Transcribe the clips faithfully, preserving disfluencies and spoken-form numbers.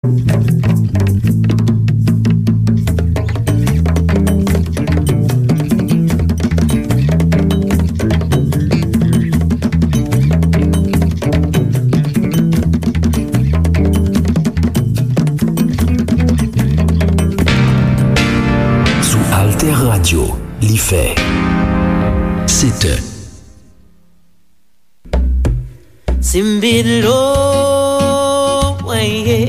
Sou Alter Radio, li fè sèt è. Simbilo, mwen ye.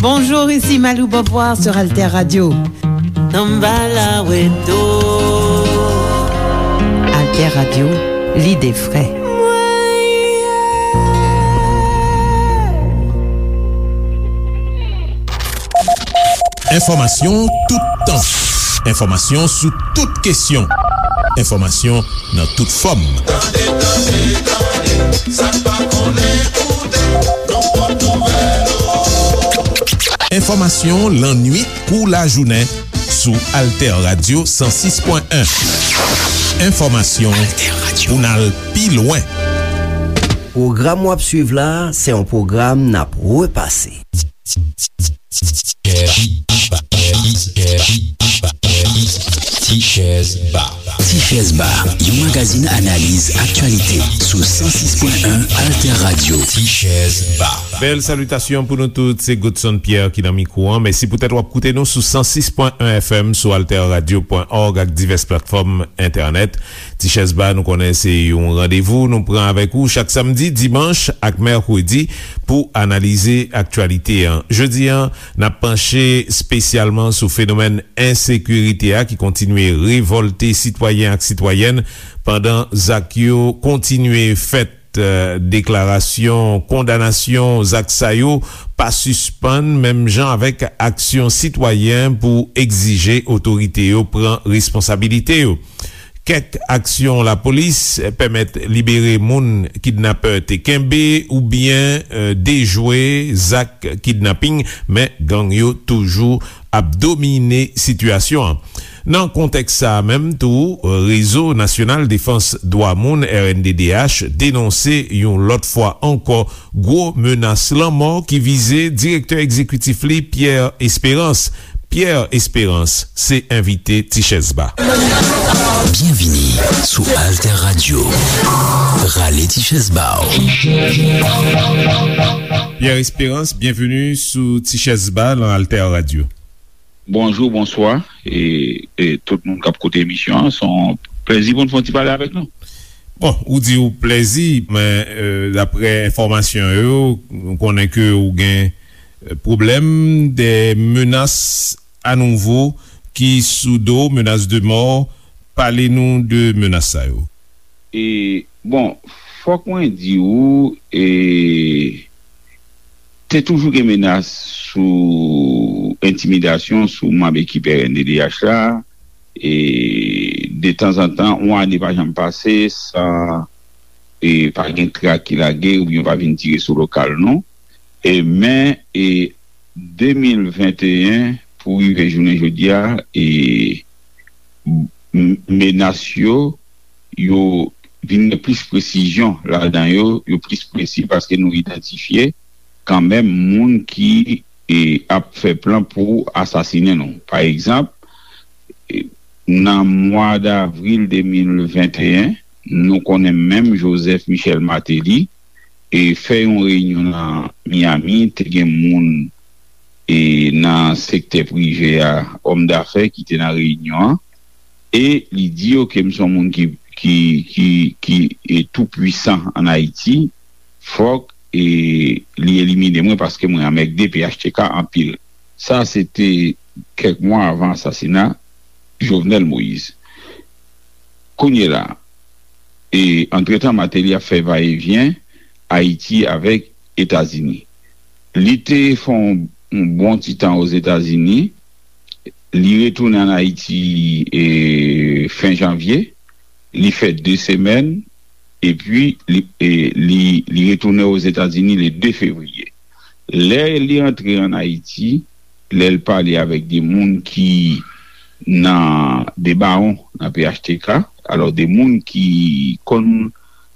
Bonjour, ici Malou Beauvoir sur Alter Radio. Nan bala weto. Alter Radio, l'idée frais. Mwen ye. Enfòmasyon toutan. Enfòmasyon sou tout kesyon. Enfòmasyon nan tout fòm. Tande, tande, tande, sa n pa konnen koute, nou pot nouvèl yo. Enfòmasyon lannwit kou lajounen sou Alter Radio san sis pwen en. Enfòmasyon pou n al pi lwen. Pwogram w ap swiv la, se yon pwogram n ap repase. Tichèz Ba. Tichèz Ba, yon magazin analiz aktyalite sou san sis pwen en Alter Radio. Tichèz Ba. Bèl salitasyon pou nou tout, se Godson Pierre ki nan mikwo an. Mèsi poutèt w ap koute nou sou san sis pwen en F M, sou alter radio pwen org ak divès platfòm entènèt. Tichèz Ba, nou konnen se yon randevou nou pran avèk ou chak samdi, dimanch ak mèkredi pou analize aktyalite an. Jodi an, n ap panche espesyalman sou fenomèn ensekirite a ki kontinye revòlte sitwayen ak sitwayèn pandan zak yo kontinye fèt. Eh, deklarasyon kondanasyon zak sa yo pa sispann, menm jan avèk aksyon sitwayen pou egzije otorite yo pran responsabilite yo. Kèk aksyon lapolis pèmèt libere moun kidnapè te kenbe oubyen, eh, dejwe zak kidnaping, men gang yo toujou ap domine sitiyasyon an. Nan kontèks sa a menm tou, Rezo Nasyonal Defans Dwa Moun, R N D D H, denonse yon lòt fwa ankò gwo menas lanmò ki vize direktè egzekitif li, Pierre Espérance. Pierre Espérance se envite Tichèz Ba. Byenvini sou Alter Radio. Rale Tichèz Ba w. Pierre Espérance, byenvini sou Tichèz Ba nan Alter Radio. Bonjou, bonswa, e, e tout moun k ap koute emisyon an. Se yon plèzi pou n fè yon ti pale avèk nou. Bon, ou di ou plèzi, men, e, daprè enfòmasyon yo, nou konnen ke ou gen, e, pwoblèm de menas anouvo ki sou do, menas de mò. Pale nou de menas sa yo. E, bon, fòk mwen di ou, e, te toujou gen menas sou entimidasyon sou manm ekip R N D D H la. E, de tanzantan, yon ane pa janm pase san, e, pa gen trak ki lage oubyen pa vin tire sou lokal nou. E, men, e, de mil venteyen pou rive jounen jodi a, e, m-, menas yo, yo vin gen plis presizyon ladan yo, yo plis presi paske nou idantifye kanmenm moun ki, e, ap fè plan pou asasinen nou. Pa egzanp, e, nan mwa davril de mil venteyen, nou konnen menm Joseph Michel Martelly, e, fè yon reyinyon nan Miami, te gen moun, e, nan sektè prive a, òm dafè ki te nan reyinyon an, e li di yo ke m se yon moun ki, ki, ki, ki, e, tou pwisan ann Ayiti, fòk, e, li elimine mwen paske mwen anmègde P H T K anpil. Sa se te kèk mwa avan asasina Jovenel Moïse. Kounye la, e, antretan, Martelly ap fè vayevyen Ayiti avèk Etazini. Li te fè yon, yon bon ti tan Ozetazini, li retounen ann Ayiti, e, fen janvye, li fè de semèn, epi li, e, li, li retounen Ozetazini le de fevriye. Lè li antre ann Ayiti, lè l pale avèk de moun ki nan, de bawon nan P H T K, alò de moun ki konn,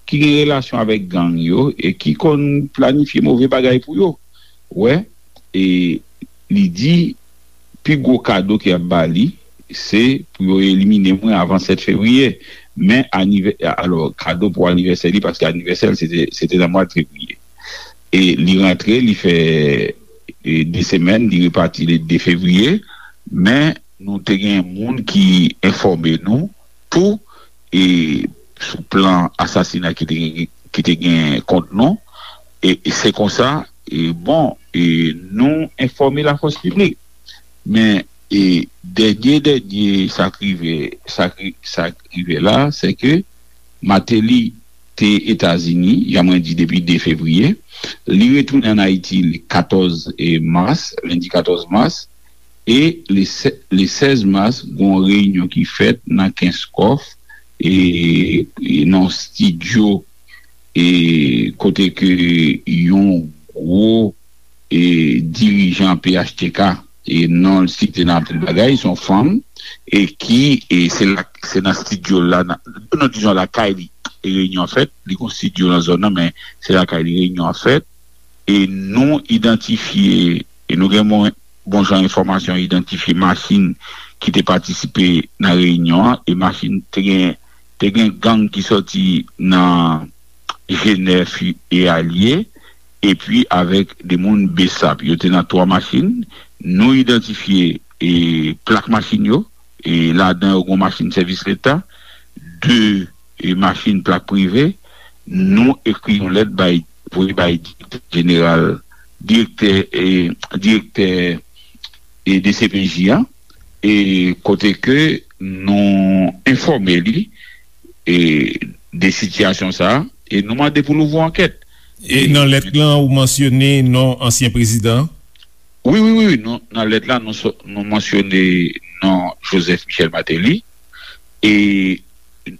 ki gen relasyon avèk gang yo e ki konn planifye move bagay pou yo. Wè, e li di pi gwo kado ke y ap ba li, se pou yo elimine mwen avan sèt fevriye. Men anivè-, alò, kado pou anivèsè li, paske anivèsè l se te, se te nan mwa fevriye. E li rantre, li fè, e, de semèn, li repati le de fevriye. Men nou te gen moun ki enfòme nou tou, e, sou plan asasina ki te gen, ki te gen kont nou. E, e se konsa, e, bon, e, nou enfòme lafòs piblik. Men, e, dènye, dènye, sa k rive, sa k ri-, sa k rive la, se ke Martelly te Etazini, jan mwen di, depi de fevriye. Li retounen ann Ayiti le katòz, e, mas, lendi katòz mas. E le sè-, le sèz mas, gon reyinyon ki fèt nan Kenskòf, e, e nan yon estidyo, e kote ke yon gwo, e, dirijan P H T K, e non l site nan anpil bagay, se yon fanm, e ki, e se la, se nan estidyo la, nan, non, dizon lakay li, e reyinyon an fèt, li gon estidyo nan zòn nan, men se lakay li reyinyon an fèt, e nou idantifye, e nou gen bon, bon jan enfòmasyon, idantifye machin ki te patisipe nan reyinyon an, e machin te gen, te gen gang ki sòti nan G nèf e alye, epi avèk de moun B S A P. Yo te nan twa machin. Nou idantifye, e, plak machin yo, e ladan yo gon machin sèvis leta, de, e, machin plak prive. Nou ekri yon lèt bay, voye bay direktè jeneral, direktè, e, direktè, e, D C P J a, e kote ke nou enfòme li, e, de sitiyasyon sa a, e nou mande pou l ouvri yon ankèt. E nan lèt lan, ou mansyone non ansyen prezidan? Wi, wi, wi, wi. Nou, nan lèt la, nou, so- nou mansyone non Joseph Michel Martelly. E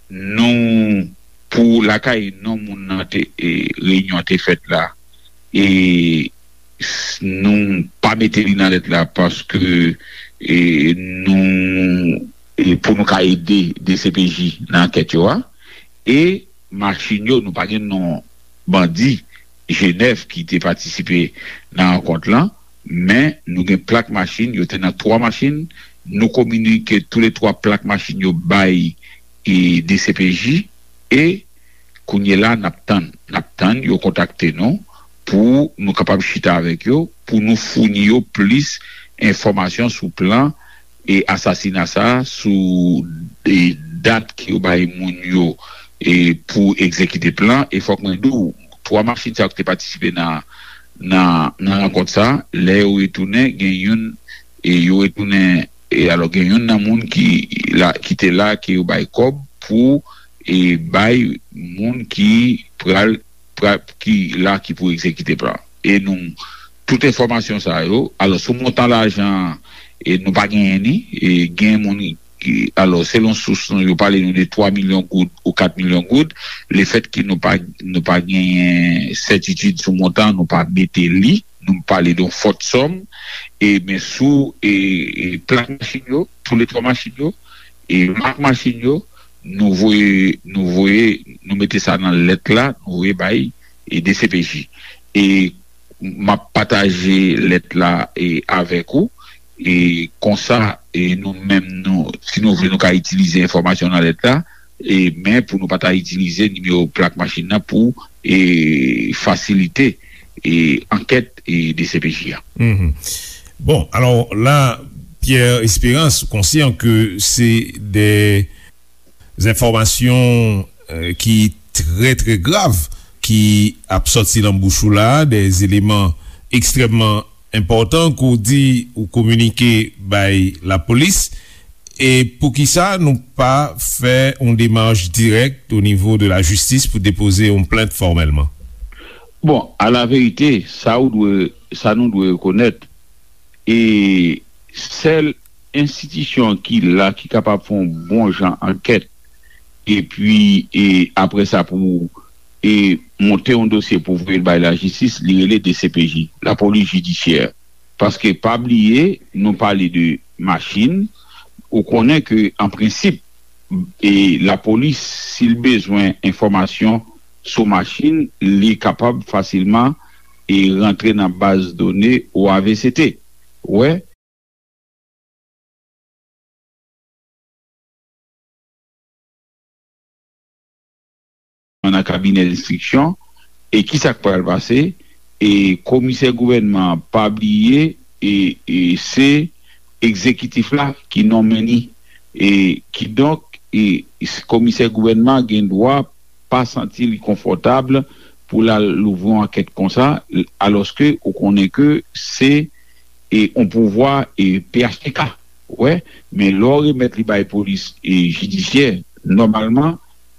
nou, pou lakay non moun nan te, e, reyinyon an te fèt la, e s- nou pa mete li nan lèt la paske, e, nou, e, pou nou ka ede D C P J nan ankèt yo a. E machin yo, nou pa gen non bandi G nèf ki te patisipe nan rankont lan, men nou gen plak machin, yo te nan twa machin, nou kominike toulètwa plak machin yo bay, e, D C P J, e kounye la n ap tann, n ap tann yo kontakte nou pou nou kapab chita avèk yo, pou nou founi yo plis enfòmasyon sou plan e asasina sa, sou, e, dat ke yo bay moun yo, e, pou egzekite plan. E fòk mwen di w, twa machin sa yo ki te patisipe nan, nan, nan rankont sa, lè yo retounen, gen youn, e, yo retounen, e, alò, gen youn nan moun ki la, ki te la, ke yo bay kòb pou, e, bay moun ki pral pra- ki la ki pou egzekite plan. E nou, tout enfòmasyon sa yo, alò, sou montan lajan an, e nou pa genyen ni, e gen moun ki, alò, selon sous nou, yo pale nou de twa milyon goud ou kat milyon goud. Lefètke nou pa, nou pa genyen sètitid sou montan, nou pa mete li, nou pale de yon fòt sòm, e men sou, e, e plak machin yo, toulètwa machin yo, e mak machin yo, nou voye, nou voye, nou mete sa nan lèt la, nou voye bay, e, D C P J. E m ap pataje lèt la, e, avèk ou, e konsa, e nou menm, nou, si nou vle, nou ka itilize enfòmasyon nan lèt la, e, men pou nou pa ta itilize nimewo plak machin nan pou, e, fasilite, e, ankèt, e, D C P J a. Mhm. Bon, alò la, Pierre Espérance, ou konsyan ke se de enfòmasyon, euh, ki trè, trè grav ki ap sòti nan bouch ou la, de eleman ekstrèmman enpòtan ke w di ou kominike bay lapolis. E poukisa nou pa fè yon demach dirèk o nivo de lajistis pou depoze yon plent fòmèlman? Bon, a la verite, sa ou dwe, sa nou dwe rekonèt, e sèl enstitisyon ki la ki kapab fè yon bon jan ankèt, epi, e apre sa, pou, e monte yon dosye pou voye l bay lajistis, li rele D C P J, lapolis jidisyè. Paske pa bliye, nou pale de machin, ou konnen ke an prensip, e lapolis, si l bezwen enfòmasyon sou machin, li kapab fasilman, e rantre nan baz done O A V C T. wè, nan kabinè enstriksyon, e ki sa k pral pase? E komisè gouvènman an, pa bliye, e, e se egzekitif la ki nonmen li. E kidonk, e, komisè gouvènman an gen dwa pa santi li konfòtab pou l al louvri yon ankèt konsa, alòske ou konnen ke se, e, yon pouvwa, e, P H T K. Wè, men lè w remèt li bay polis, e, jidisyè, nòmalman,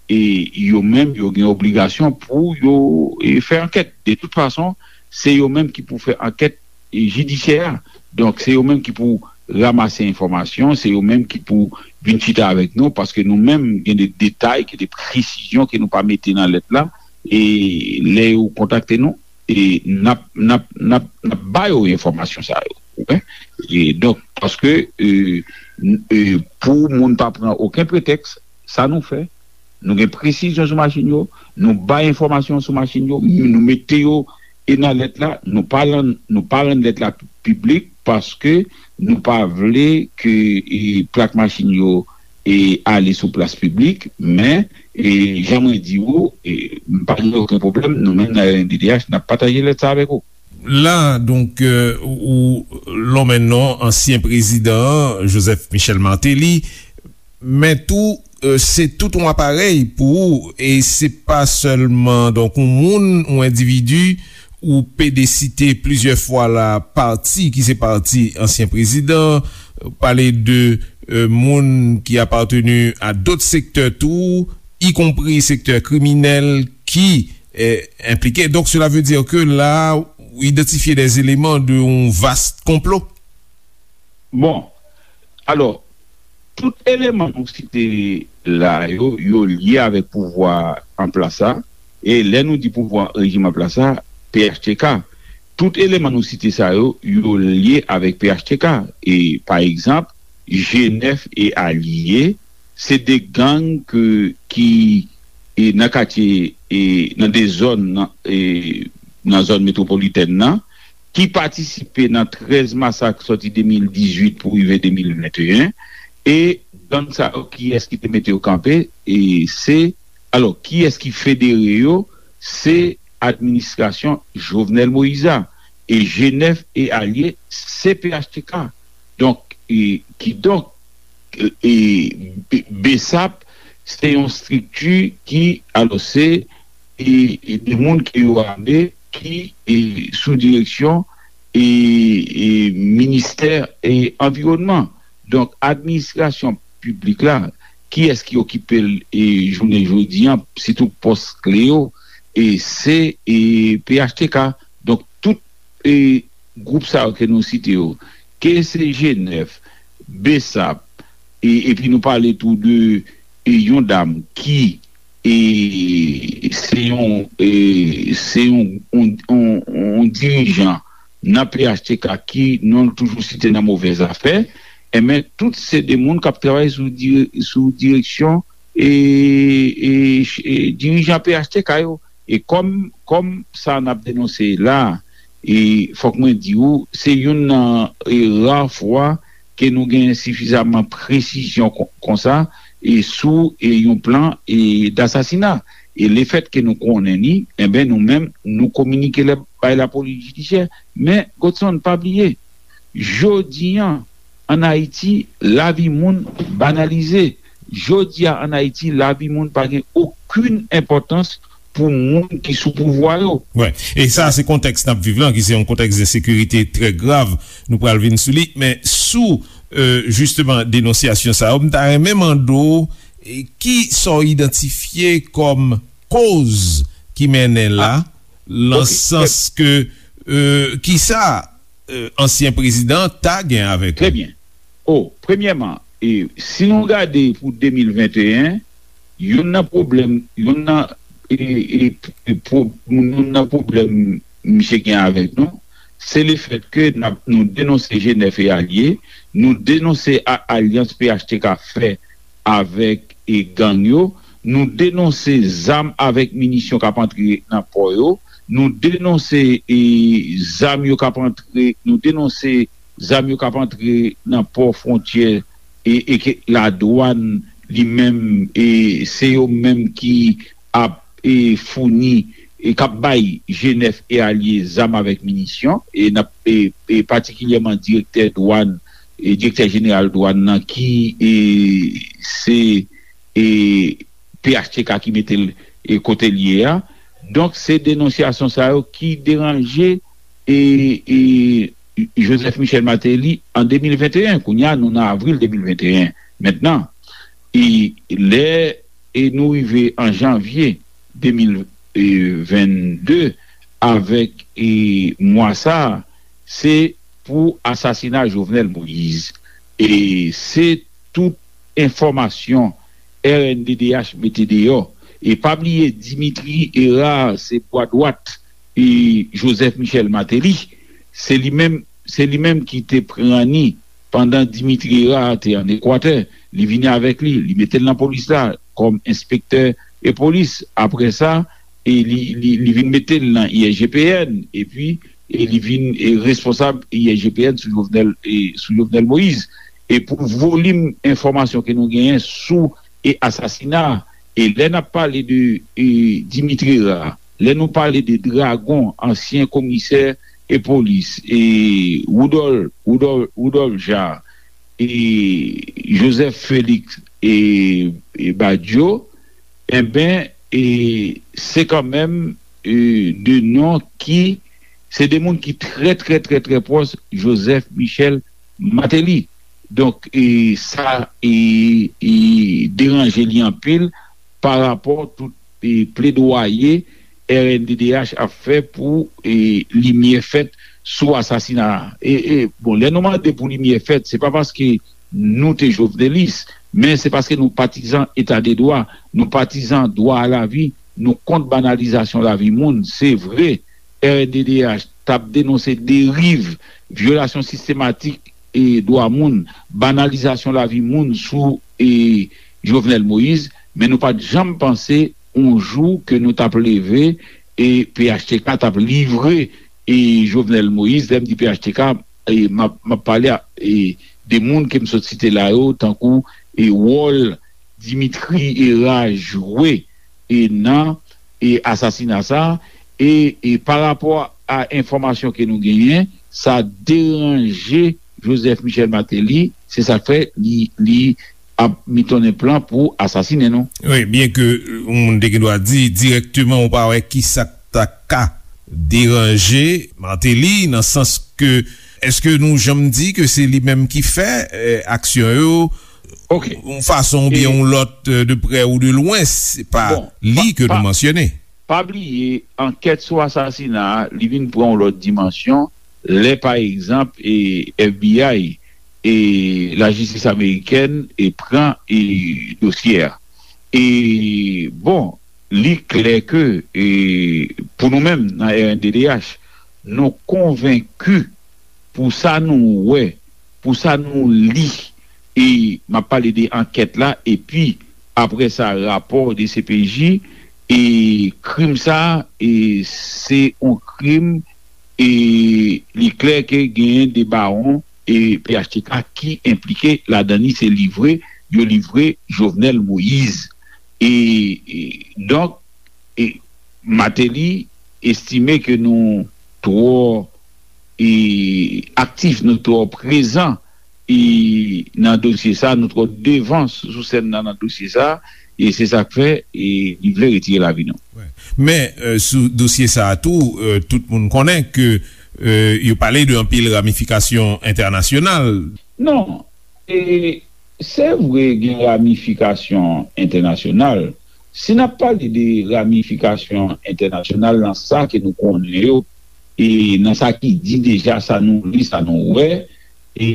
e, yo menm, yo gen obligasyon pou yo, e, fè ankèt. De tout fason, se yo menm ki pou fè ankèt, e, jidisyè a. Donk, se yo menm ki pou ranmase enfòmasyon, se yo menm ki pou vin chita avèk nou, paske nou menm, gen de detay, gen de presizyon ke nou pa mete nan lèt la, e lè yo kontakte nou, e n ap, n ap, n ap, n ap ba yo enfòmasyon sa yo. Ou konprann? E donk, paske, e, n- e, pou moun pa pran okenn pretèks, sa nou fè, nou gen presizyon sou machin yo, nou bay enfòmasyon sou machin yo, nou mete yo e nan lèt la, nou pa rann, nou pa rann lèt la piblik paske nou pa vle ke, e, plak machin yo, e, ale sou plas piblik, men, e, jan mwen di ou, e, m pa gen okenn pwoblèm, nou menm nan R N D D H, n ap pataje lèt sa avèk ou. La, donk, euh, ou, ou lonmen non ansyen prezidan an, Joseph Michel Martelly, men tou, euh, se tout yon aparèy pou ou, e se pa sèlman, donk, yon moun, yon endividi, ou pede site plizyè fwa la, pati ki se pati ansyen prezidan, pale de, euh, moun ki apateni a dòt sektè tou, ikonpri sektè kriminèl ki, eh, enplike. Donk, cela veut dire que la, ou idantifye des éléments de yon vast konplo. Bon, alò, tout eleman nou site la yo, yo lye avèk pouvwa an plas la. E lè nou di pouvwa rejim an plas la, P H T K, tout eleman nou site sa yo, yo lye avèk P H T K. E, pa egzanp, G nèf e Alye, se de gang ke, ki, e, nan katye, e, nan de zòn, nan, e, nan zòn metwopolitèn nan, ki patisipe nan trèz masak sòti de mil dizuit pou rive de mil venteyen, e gang sa yo, kiyès ki te mete yo kanpe? E se, alò, kiyès ki federe yo? Se administrasyon Jovenel Moïse a. E G nèf e Alye, se P H T K. Donk, e, kidonk, e, e, B- BSAP, se yon estrikti ki, alò, se, e, e de moun ke yo ame, ki, e, sou direksyon, e, e, ministè, e, anviwònman. Donk, administrasyon piblik la, kiyès ki okipe l, e, jounen jodi an, sitou pòs kle yo, e se, e, P H T K. Donk, tout, e, gwoup sa yo ke nou site yo, ke se G nèf, BSAP, e, epi nou pale tou de, e, yon dam ki, e, se yon, e, se yon, yon, yon, yon dirijan nan P H T K ki non l toujou site nan movèzafè, enben, tout se de moun k ap travay sou, dire- sou direksyon, e, e, e dirijan P H T K yo. E kòm, kòm sa n ap denonse la, e fòk mwen di ou, se youn nan, e, ra fwa ke nou gen sifizaman presizyon kon- konsa, e sou, e, yon plan, e, dasasina. E lefèt ke nou konnen li, enben, nou menm, nou kominike l bay lapolis jidisyè. Men, Godson, pa bliye, jodi an, ann Ayiti, lavi moun banalize. Jodi a, ann Ayiti, lavi moun pa gen okenn enpòtans pou moun ki sou pouvwa yo. Wi, e sa se kontèks n ap viv lan, ki se yon kontèks de sekirite trè grav. Nou pral vin sou li, men sou, euh, jisteman, denonsyasyon sa yo, m ta renmen mande w, e, ki sa w idantifye kòm koz ki mennen la, nan sans ke, euh, ki sa, euh, ansyen prezidan ta gen avèk li? Trè byen. O, premyèman, e, si nou gade pou de mil venteyen, youn nan pwoblèm, youn nan, e, e, e, pwo- youn nan pwoblèm misye gen avèk nou, se lefèt ke n ap- nou denonse G nèf e alye, nou denonse a- alyans P H T K fè avèk, e, gang yo, nou denonse zam avèk minisyon k ap antre nan pò yo, nou denonse, e, zam yo k ap antre, nou denonse zam yo k ap antre nan pò fwontyè e, e ke ladwàn li menm, e se yo menm ki ap e, founi, e k ap bay G nèf e alye zam avèk minisyon, e n ap e, e patikilyèman direktè dwàn, e direktè jeneral dwàn nan ki e, se e, P H T K ki mete l e, kote l ye a. Donk, se denonsyasyon sa yo ki deranje e, e, Joseph Michel Martelly an de mil venteyen. Kounye a, nou nan avril de mil venteyen mentnan. E lè e nou rive an janvye de mil vennde avèk e mwa sa a, se pou asasina Jovenel Moïse. E se tout enfòmasyon R N D D H mete deyò. E pa bliye Dimitri Hérard se bwa dwat e Joseph Michel Martelly. Se li menm, se li menm ki te pran ni pandan Dimitri Hérard te ann Ekwatè. Li vini avèk li, li mete l nan polis la kòm enspektè e polis. Apre sa, e li, li, li vin mete l nan I S G P N, epi e li vin e responsab I S G P N sou Jovenel, e sou Jovenel Moïse. E pou volim enfòmasyon ke nou genyen sou e asasina, e lè n ap pale de e Dimitri Hérard, lè nou pale de Dragon, ansyen komisè e polis, e Woudòl, Woudòl, Woudòl Ja, e Joseph Félix e, e Badio, enben, e se kanmenm e de non ki se de moun ki trè, trè, trè, trè pwòch Joseph Michel Martelly. Donk, e sa e, e deranje li anpil pa rapò tout e pledwaye R N D D H ap fè pou e limyè fèt sou asasina a. E, e bon, lè nou mande pou limyè fèt, se pa paske nou te jovenelis, men se paske nou patizan eta de dwa, nou patizan dwa a lavi, nou kont banalizasyon lavi moun. Se vre, R N D D H t ap denonse deriv, vyolasyon sistematik e dwa moun, banalizasyon lavi moun sou e Jovenel Moïse, men nou pa t janm panse yon jou ke nou t ap leve e P H T K t ap livre e Jovenel Moïse. Lè m di P H T K, e m ap, m ap pale a, e de moun ke m sot site la yo, tankou e wòl Dimitri Hérard jwe e nan e asasina sa a, e, e pa rapò a enfòmasyon ke nou genyen, sa deranje Joseph Michel Martelly, se sa k fè li, li ap mitonnen plan pou asasinen nou. Wi, byen ke yon moun te gen dwa di dirèkteman ou pa wè kisa k ta ka deranje Martelly, nan sans ke, èske nou janm di ke se li menm ki fè eh, aksyon yo, ok, yon fason oubyen yon lòt, eh, de prè ou de lwen, se pa li ke nou mansyone. Pa bliye, ankèt sou asasina a, li vin pran yon lòt dimansyon lè, pa egzanp, e F B I e lajistis amerikèn e pran e dosye a. E, bon, li klè ke e pou nou menm nan R N D D H, nou konvenki pou sa nou wè, pou sa nou li, e m ap pale de ankèt la, epi apre sa, rapò de C P J, e krim sa a, e se yon krim, e li klè ke genyen de bawon e P H T K ki enplike ladan li, se livre, yo livre Jovenel Moïse. E, e donk, e Martelly estime ke nou twò e aktif, nou twò prezan e nan dosye sa, nou twò devan sou sèn nan, nan dosye sa, e se sa k fè e li vle retire lavi nou. Men, eh, sou dosye sa a tou, eh, tout moun konnen ke eh, yo pale de anpil ramifikasyon entènasyonal. Non, e se vre gen ramifikasyon entènasyonal. Si n ap pale de ramifikasyon entènasyonal nan sa ke nou konnen yo, e nan sa ki di deja, sa nou li, sa nou wè, e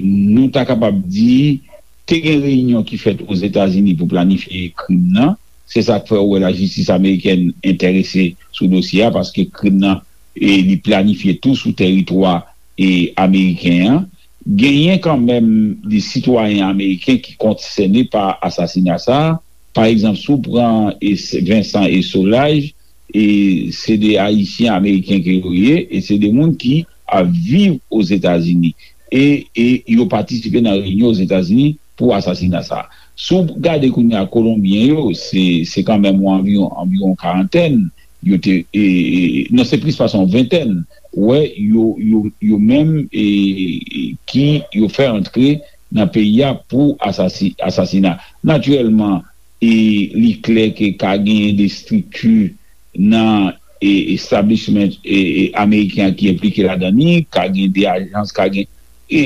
nou ta kapab di, te gen reyinyon ki fèt Ozetazini pou planifye krim nan. Se sa k fè ou wè lajistis amerikèn enterese sou dosye a, paske krim nan, e, li planifye tou sou tèritwa, e, ameriken an. Genyen kanmenm de sitwayen ameriken ki konsène pa asasina sa a. Pa egzanp, si w pran, e, Vincent e Solages, e se de Ayisyen Ameriken ke yo ye, e se de moun ki ap viv Ozetazini. E, e yo patisipe nan reyinyon Ozetazini pou asasina sa a. Si w gade kounye a Kolonbyen yo, se, se kanmenm yon anviwon, anviwon karantèn, yo te, e, e, non, se plis pase yon ventèn, wè, yo, yo, yo menm, e, e, ki yo fè antre nan peyi a pou asasi-, asasina. Natirèlman, e li klè ke ka genyen de estrikti nan, e, establishment, e, e, ameriken an ki enplike ladan li, ka gen de ajans, ka gen, e,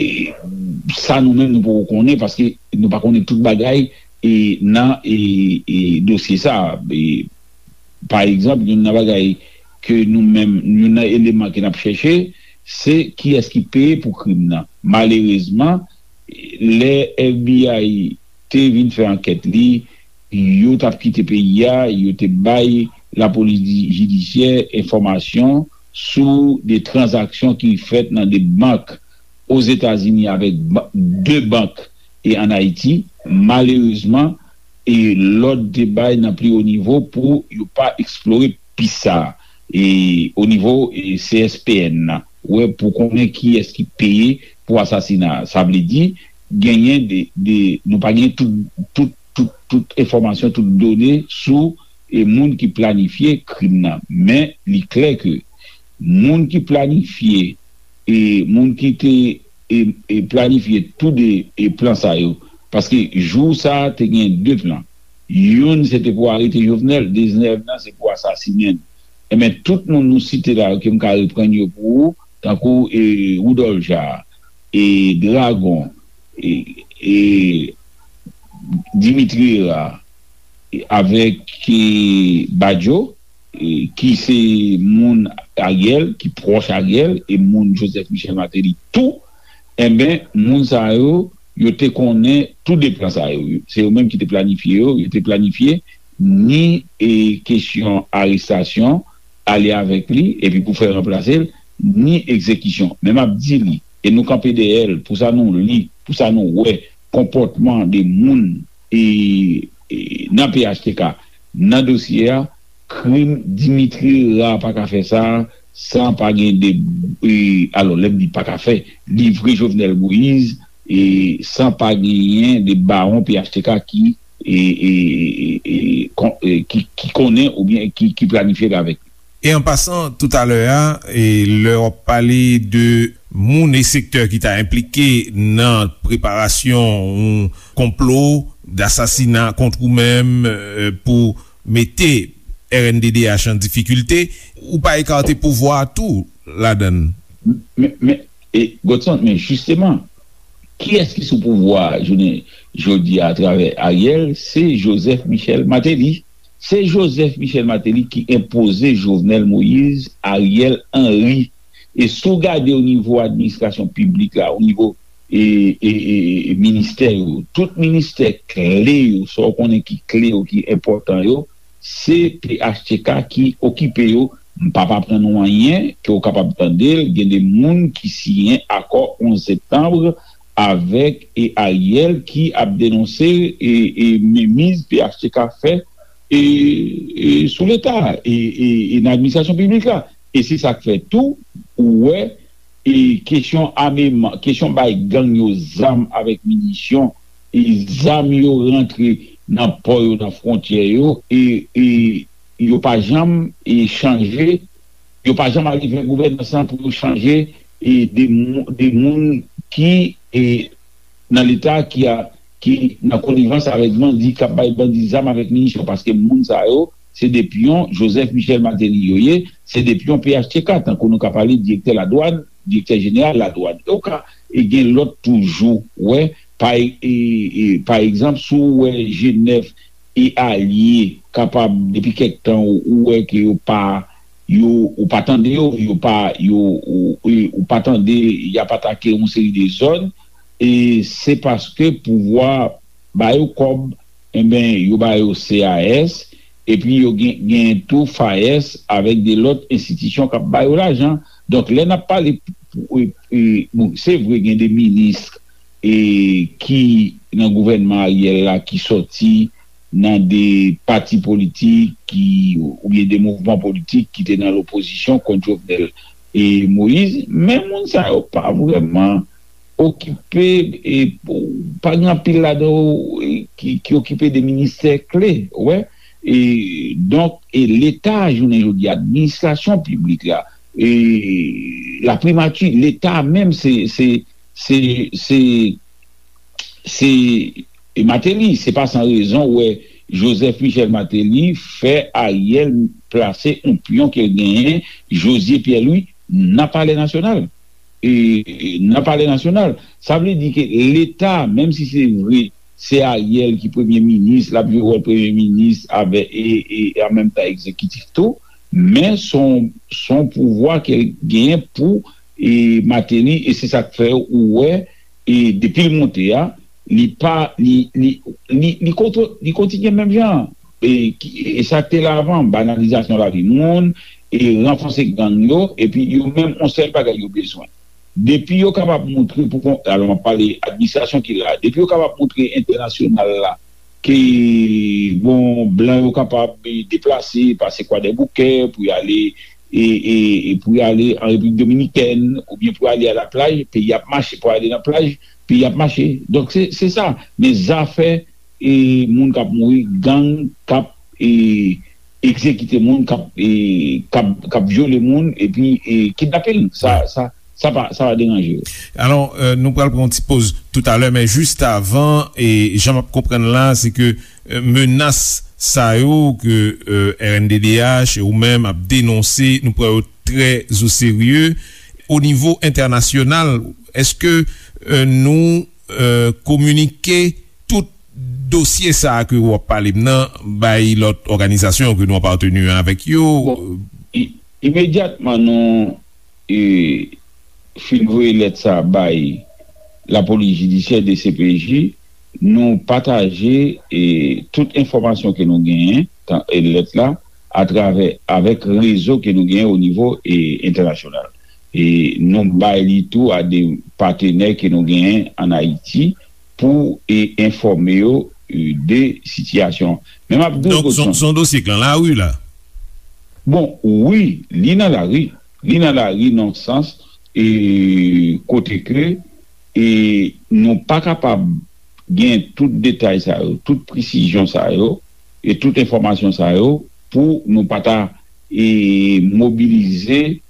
sa nou menm nou poko konnen, paske nou pa konnen tout bagay, e, nan, e, e, dosye sa a. E, pa egzanp, youn nan bagay ke nou menm, youn nan eleman ke n ap chèche, se kiyès ki peye pou krim nan. Malerezman, lè F B I te vin fè ankèt li, yo t ap kite peyi a, yo te bay lapolis di-, jidisyè enfòmasyon sou de tranzaksyon ki fèt nan de bank Ozetazini avèk ba-, de bank e ann Ayiti. Malerezman, e lòd te bay nan pli wo nivo pou yo pa eksplore pis sa a, e o nivo, e C S P N nan, wè, pou konnen kiyès ki peye pou asasina a. Sa vle di, genyen de, de, nou pa gen tout, tout, tout, tout enfòmasyon, tout done sou, e, moun ki planifye krim nan. Men, li klè ke moun ki planifye, e, moun ki te, e, e, planifye tou de, e, plan sa yo, paske jou sa a te gen de plan. Youn, se te pou arete Jovenel, dezyèm nan, se pou asasinen l. Enben, tout moun nou site la yo, ke m ka reprann yo pou ou, tankou, e, Woudòl Ja, e, Dragon, e, e, Dimitri Herard, e, avèk, e, Badio, e, ki se moun Ariel, ki pwòch Ariel, e moun Joseph Michel Martelly tou, enben, moun sa yo, yo te konnen tou de plan sa yo. Se yo menm ki te planifye yo, yo te planifye ni, e, kesyon arestasyon, ale avèk li, epi pou fè ranplase l, ni egzekisyon. Men m ap di li, e nou kanpe dèyè l, pou sa nou li, pou sa nou wè, konpòtman de moun, e, e, nan P H T K, nan dosye a, krim Dimitri Herard pa ka fè sa san pa gen de, e, alò, lè m di pa ka fè, livre Jovenel Moïse, e, san pa genyen de bawon P H T K ki, e, e, e, e, kon-, e, ki, ki konnen oubyen ki, ki planifye l avèk li. E an pasan, toutalè a, e lè w ap pale de moun e sektè ki ta enplike nan preparasyon yon konplo dasasina kont ou menm, e, pou mete R N D D H an difikilte, ou pa ekate pouvwa a tou ladan l. Men, men, e, Godson, men jisteman, kiyès ki sou pouvwa a jounen jodi a atravè Ariel? Se Joseph Michel Martelly. Se Joseph Michel Martelly ki enpoze Jovenel Moïse, Ariel Henry. E si w gade o nivo administrasyon piblik la, o nivo, e, e, e, e ministè yo, tout ministè kle yo, sa w konnen ki kle yo, ki enpòtan yo, se P H T K ki okipe yo. M p ap aprann ou anyen ke w kapab tande l. Gen de moun ki siyen akò onz septanm avèk, e, Ariel ki ap denonse, e, e, menmiz P H T K fè, e, e, sou Leta, e, e, e nan administrasyon piblik la. E se sa k fè tou, ou wè, e kesyon ameman, kesyon bay gang yo zam avèk minisyon, e zam yo rantre nan pò yo, nan fwontyè yo, e, e yo pa janm, e chanje, yo pa janm arive gouvènans lan pou yo chanje, e de, mou- de moun ki, e nan Leta ki a, ki nan konivans avèk bandi, k ap bay bandi zam avèk minisyon, paske moun sa yo, se de pyon Joseph Michel Martelly yo ye, se de pyon P H T K, tankou nou ka pale direktè ladwàn, direktè jeneral ladwàn. E w ka, e gen lòt toujou, wè, pa, e, e, pa egzanp, si w wè G nèf e alye kapab, depi kèk tan, ou, ou wè ke yo pa, yo, ou pa tande yo, yo pa, yo, ou, ou, ou pa tande y ap atake yon seri de zòn, e se paske pouvwa ba yo kòb, enben, yo ba yo C A S, epi yo gen, gen tou FAES avèk de lòt enstitisyon k ap ba yo lajan. Donk, lè n ap pale, e, e, bon, se vre, gen de minis, e, ki nan gouvènman Ariel la ki sòti nan de pati politik ki, oubyen de mouvman politik ki te nan lopozisyon kont Jovenel. e Moyiz, men moun sa yo pa vrèman okipe, e pa gen anpil ladan yo, e ki, ki okipe de ministè kle, ou wè. E donk, e Leta, jounen jodi, administrasyon piblik la, e laprimati, Leta menm, se, se, se, se, se Martelly. Se pa san rezon, ou wè, Joseph Michel Martelly fè Ariel plase yon pyon ke l genyen, José Pierre-Louis, nan Palè Nasyonal. E, e, nan Palè Nasyonal. Sa vle di ke Leta, menm si se vre, se Ariel ki premye minis, l ap jwe wòl premye minis avè, e, e, e an menm tan egzekitif tou, men se yon, se yon pouvwa ke l genyen pou, e, Martelly, e se sa k fè ou wè, e depi l monte a, li pa, li, li, li, li kontwo-, li kontinye menm jan. E, ki, e sa k te la avan, banalizasyon lavi moun, e ranfòse gang yo, epi yo menm, yon sèl bagay yo bezwen. Depi yo kapab montre pou kon, alò, m ap pale administrasyon ki la, depi yo kapab montre entènasyonal la ke, bon, blan yo kapab, e, deplase, pase Kwadèboukè pou y ale, e, e, e pou y ale an Repiblik Dominikèn, oubyen pou y ale a laplaj, peyi ap mache, pou y ale nan plaj, peyi ap mache. Donk, se, se sa. Men zafè, e, moun k ap mouri, gang k ap, e, egzekite moun, k ap, e, k ap, k ap vyole moun, epi, e, kidnaping. Sa, sa, sa pa, sa pa deranje yo. Alò, e, nou pral pran yon ti poz toutalè, men jis avan, e jan m ap konprann la, se ke, e, menas sa yo ke, e, R N D D H e ou menm ap denonse, nou pran yo trè o serye. O nivo entènasyonal, èske, e, nou, e, kominike tout dosye sa a ke w ap pale m nan bay lòt òganizasyon ke nou apateni avèk yo? Bon, i-, imedyatman nou, e, fin voye lèt sa a bay lapolis jidisyè, D C P J, nou pataje, e, tout enfòmasyon ke nou genyen, tan, e, lèt la, atravè, avèk rezo ke nou genyen o nivo, e, entènasyonal. E nou bay li tou a de patenè ke nou genyen ann Ayiti pou, e, enfòme yo, e, de sitiyasyon. Men m ap di w, Donk, se yon, Godson, se yon dosye k nan lari la? Bon, wi, li nan lari. Li nan lari nan sans, e, kote ke, e, nou pa kapab gen tout detay sa yo, tout presizyon sa yo, e tout enfòmasyon sa yo pou nou pa ta, e, mobilize,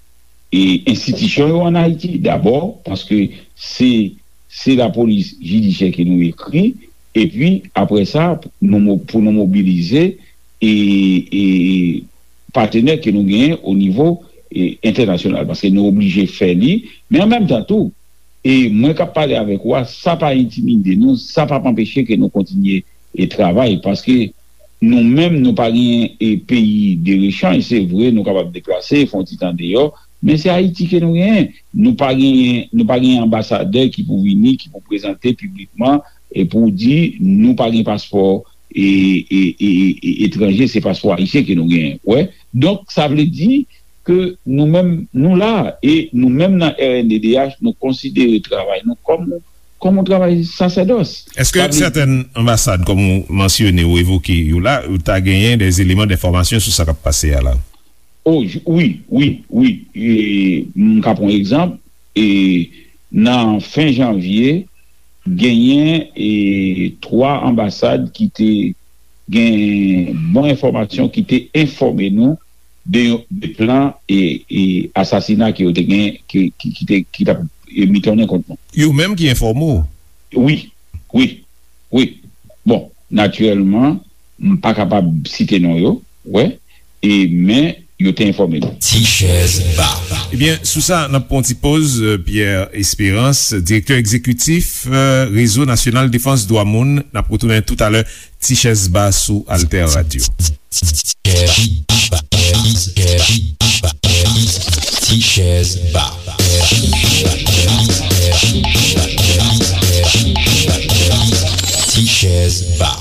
e, enstitisyon yo ann Ayiti dabò, paske se, se lapolis jidisyè ke nou ekri, epi apre sa, nou mo-, pou nou mobilize, e, e, patenè ke nou genyen o nivo, e, entènasyonal, paske nou oblije fè li, men an menm tan tou, e mwen k ap pale avèk ou a, sa pa entimide nou, sa p ap anpeche ke nou kontinye, e, travay, paske nou menm, nou pa genyen, e, peyi de rechanj, se vre, nou kapab deplase, fè yon ti tan deyò, men se Ayiti ke nou genyen. Nou pa genyen, nou pa genyen anbasadè ki pou vini, ki pou prezante piblikman, e pou di, nou pa gen paspò, e, e, e, e, etranje, se paspò ayisyen ke nou genyen. Wè. Donk, sa vle di ke nou menm, nou la, e nou menm nan R N D D H, nou konsidere travay nou kòm, kòm yon travay sasèdòs. Èske Sa vle sètèn anbasad, kòm ou mansyone ou evoke yo la, ou ta genyen de eleman denfòmasyon sou sa k ap pase a la? Oh, j-, wi, wi, wi. E, m ka pran yon egzanp. E, nan fen janvye, genyen, e, twa anbasad ki te gen bon enfòmasyon, ki te enfòme nou de, de plan, e, e, asasina ke yo te gen, ki, ki, ki te, ki t ap, e, mitonnen kont nou. Yo menm ki enfòme w? Wi, wi, wi. Bon, natirèlman, m pa kapab site non yo, wè, e, men yo te enfòme nou. Ti chèz ba. Ebyen, sou sa, n ap pran ti poz, euh, Pierre Espérance, direktè egzekitif, euh, Rezo Nasyonal Defans Dwa Moun. N ap retounen toutalè, Ti chèz ba sou Alter Radio. Ti chèz ba. Ti chèz ba.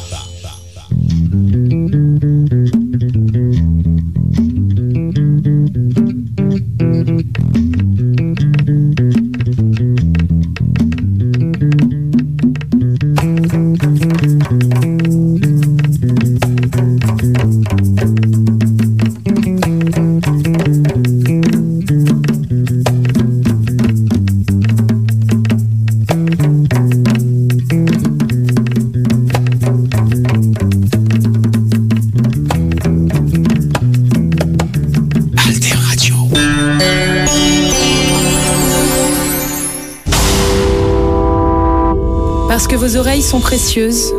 Vos oreilles sont précieuses.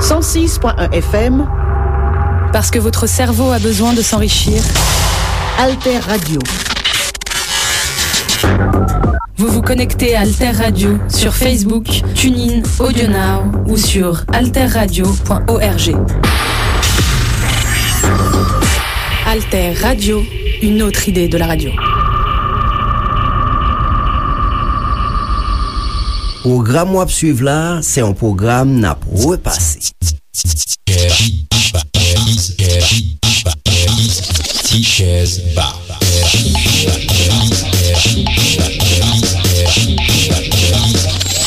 Cent six point un F M. Parce que votre cerveau a besoin de s'enrichir. Alter Radio. Vous vous connectez à Alter Radio sur Facebook, TuneIn, AudioNow ou sur alterradio point org. Alter Radio, une autre idée de la radio. Pwogram w ap swiv la, se yon pwogram n ap repase. Ti chèz ba.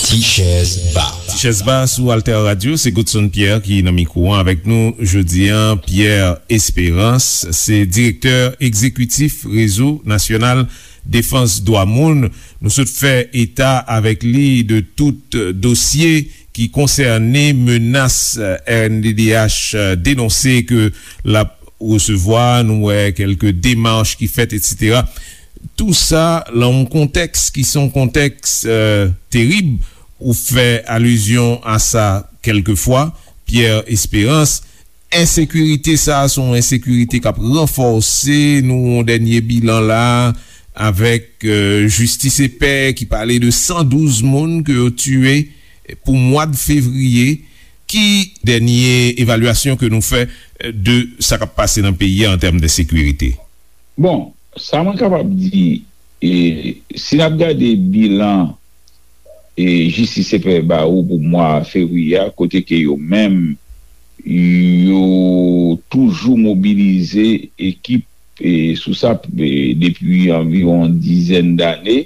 Ti chèz ba. Ti chèz ba sou Alter Radio, se Godson Pierre ki nan mikwo an avèk nou jodi an. Pierre Espérance, se direktè egzekitif Rezo Nasyonal Defans Dwa Moun. Nou sot fè eta avèk li de tout dosye ki konsène menas R N D D H denonse ke l ap resevwa, nou wè kèlke demach ki fèt, etsetera. Tou sa nan yon kontèks ki se yon kontèks, euh, terib. Ou fè alizyon a sa kèlkefwa, Pierre Espérance. Ensekirite sa a se yon ensekirite k ap ranfòse. Nou yon dènye bilan la avèk, euh, Jistis e Pè ki pale de san douz moun ke yo tiye pou mwa de fevriye. Ki dènye evalyasyon ke nou fè, euh, de sa k ap pase nan peyi a an tèm de sekirite? Bon, sa mwen kapab di, e, si n ap gade bilan, e, Jistis e Pè ba ou pou mwa fevriye a, kote ke yo menm, yo toujou mobilize ekip, e, sou sa, e, depi anviwon dizèn dane,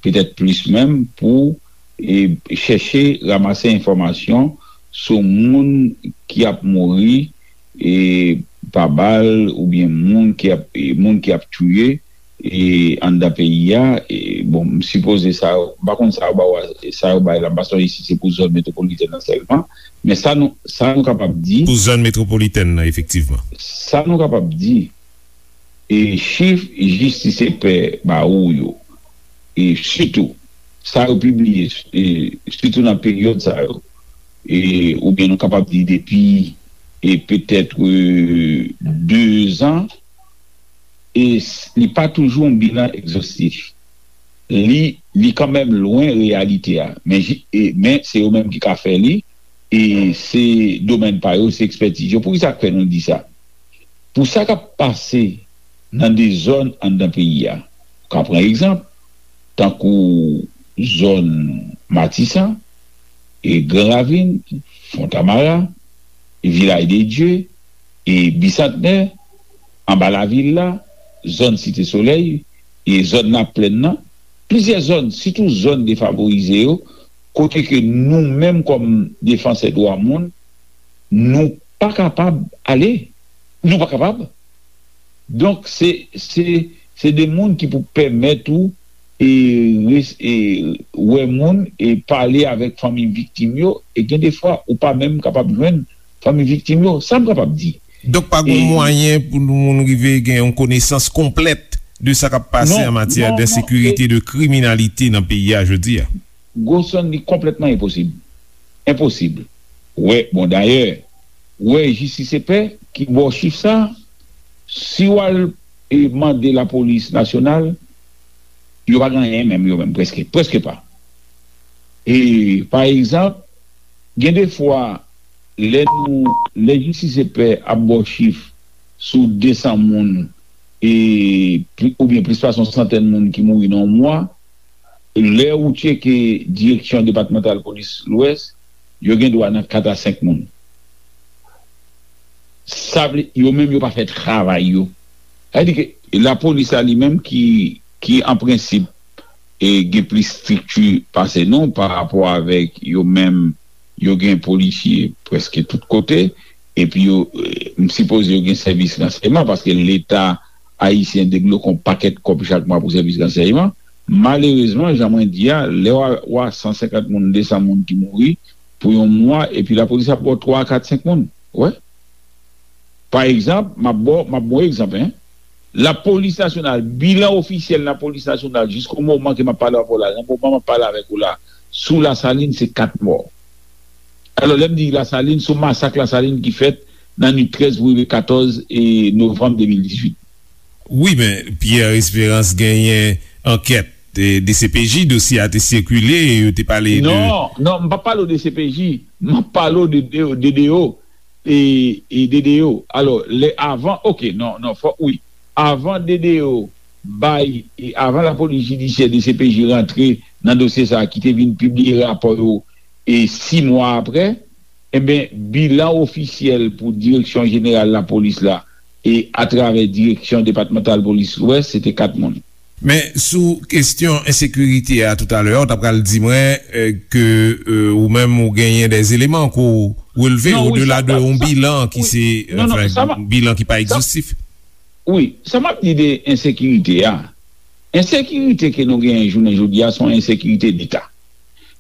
petèt plis menm, pou, e, chèche ranmase enfòmasyon sou moun ki ap mouri, e, pa bal oubyen moun ki ap, e, moun ki ap touye, e, anndan peyi a. E, bon, m sipoze sa, m pa konn sa yo ba w, sa yo bay la, m pa sonje si se pou zòn metwopolitèn nan sèlman, men sa nou, sa nou kapab di. Pou zòn metwopolitèn nan, efektivman. Sa nou kapab di, e chif Jistis e Pè ba ou yo, e sitou sa yo pibliye, e sitou nan peryòd sa yo, e, oubyen nou kapab di depi, e petèt, e, de zan, e s- li pa toujou yon bilan egzostif. Li, li kanmenm lwen reyalite a. Men, ji- e, men se yo menm ki ka fè li, e se domèn pa yo, se ekspètiz yo. Poukisa k fè nou di sa? Pou sa k ap pase nan de zòn anndan peyi a. Ou ka pran egzanp, tankou zòn Matisan, e Gran Ravin, Fontamara, e Vilaj de Dye, e Bisantnè, anba lavil la, zòn Site Solèy, e zòn Laplèn nan, plizyè zòn, sitou zòn defavorize yo, kote ke nou menm kòm defansè dwa moun, nou pa kapab ale. Nou pa kapab. Donk, se, se, se de moun ki pou pèmèt ou, e, res- e, wè moun e pale avèk fanmi viktim yo, e gen de fwa, ou pa menm kapab jwenn fanmi viktim yo. Sa m kapab di. Donk, pa gen mwayen pou nou moun rive gen yon konesans konplèt de sa k ap pase an matyè de sekirite, de kriminalite nan peyi a jodi a. Gosson, li konplètman enposib. Enposib. Wè, bon, dayè, wè, Jistis e Pè ki ba w chif sa, si w al, e, mande lapolis nasyonal, yo pa gen anyen menm, yo menm, prèske, prèske pa. E, pa egzanp, gen de fwa, lè nou, lè Jistis e Pè ap ba w chif sou de san moun, e, pli- oubyen plis pase yon santèn moun ki mouri nan yon mwa, lè ou tcheke Direksyon Depatmantal Polis Lwès, yo gen dwa nan kat a senk moun. Sa vle, yo menm yo pa fè travay yo. Sa vle di ke lapolis la li menm ki, ki an prensip, e, gen plis estrikti pase nou pa rapò avèk yo menm, yo gen polisye prèske tout kote, epi yo, e, m sipoze yo gen sèvis ransèyman, paske Leta ayisyen debloke yon pakèt kòb chak mwa pou sèvis ransèyman. Malerezman, jan mwen di a, lè w a, w a san senkant moun, de san moun ki mouri pou yon mwa, epi lapolis ap ba w twa, kat, senk moun. Wè. Pa egzanp, m ap ba w, m ap ba w egzanp, en. Lapolis nasyonal, bilan ofisyèl lapolis nasyonal, jisko moman ke m ap pale avè w la, nan moman m ap pale avèk ou la, sou Lasalin, se kat mò. Alò, lè m di Lasalin, sou masak Lasalin ki fèt nan nwit trèz pou rive katòz e novanm de mil dizuit. Wi, men Pierre Espérance genyen ankèt, e, D C P J, dosye a te sikile, e yo te pale de... Non, non, m p ap pale w de D C P J, m ap pale w de, de, de D O, e, e D D O. Alò, lè avan, oke, non, non, fòk, wi. Avan D D O bay, e avan lapolis jidisyè, D C P J rantre nan dosye sa a ki te vin pibliye rapò yo, e sis mwa apre, enben, bilan ofisyèl pou Direksyon Jeneral Lapolis la, e atravè Direksyon Depatmantal Polis Lwès, se te kat moun. Men sou kesyon ensekirite a toutalè, ou ta pral di mwen, e, ke, e, ou menm ou genyen de eleman ke w relve odela de yon bilan ki se, anfen, bilan ki pa egzostif. Wi, sa m ap di de ensekirite a, ensekirite ke nou genyen jounen jodi a, se yon ensekirite Leta.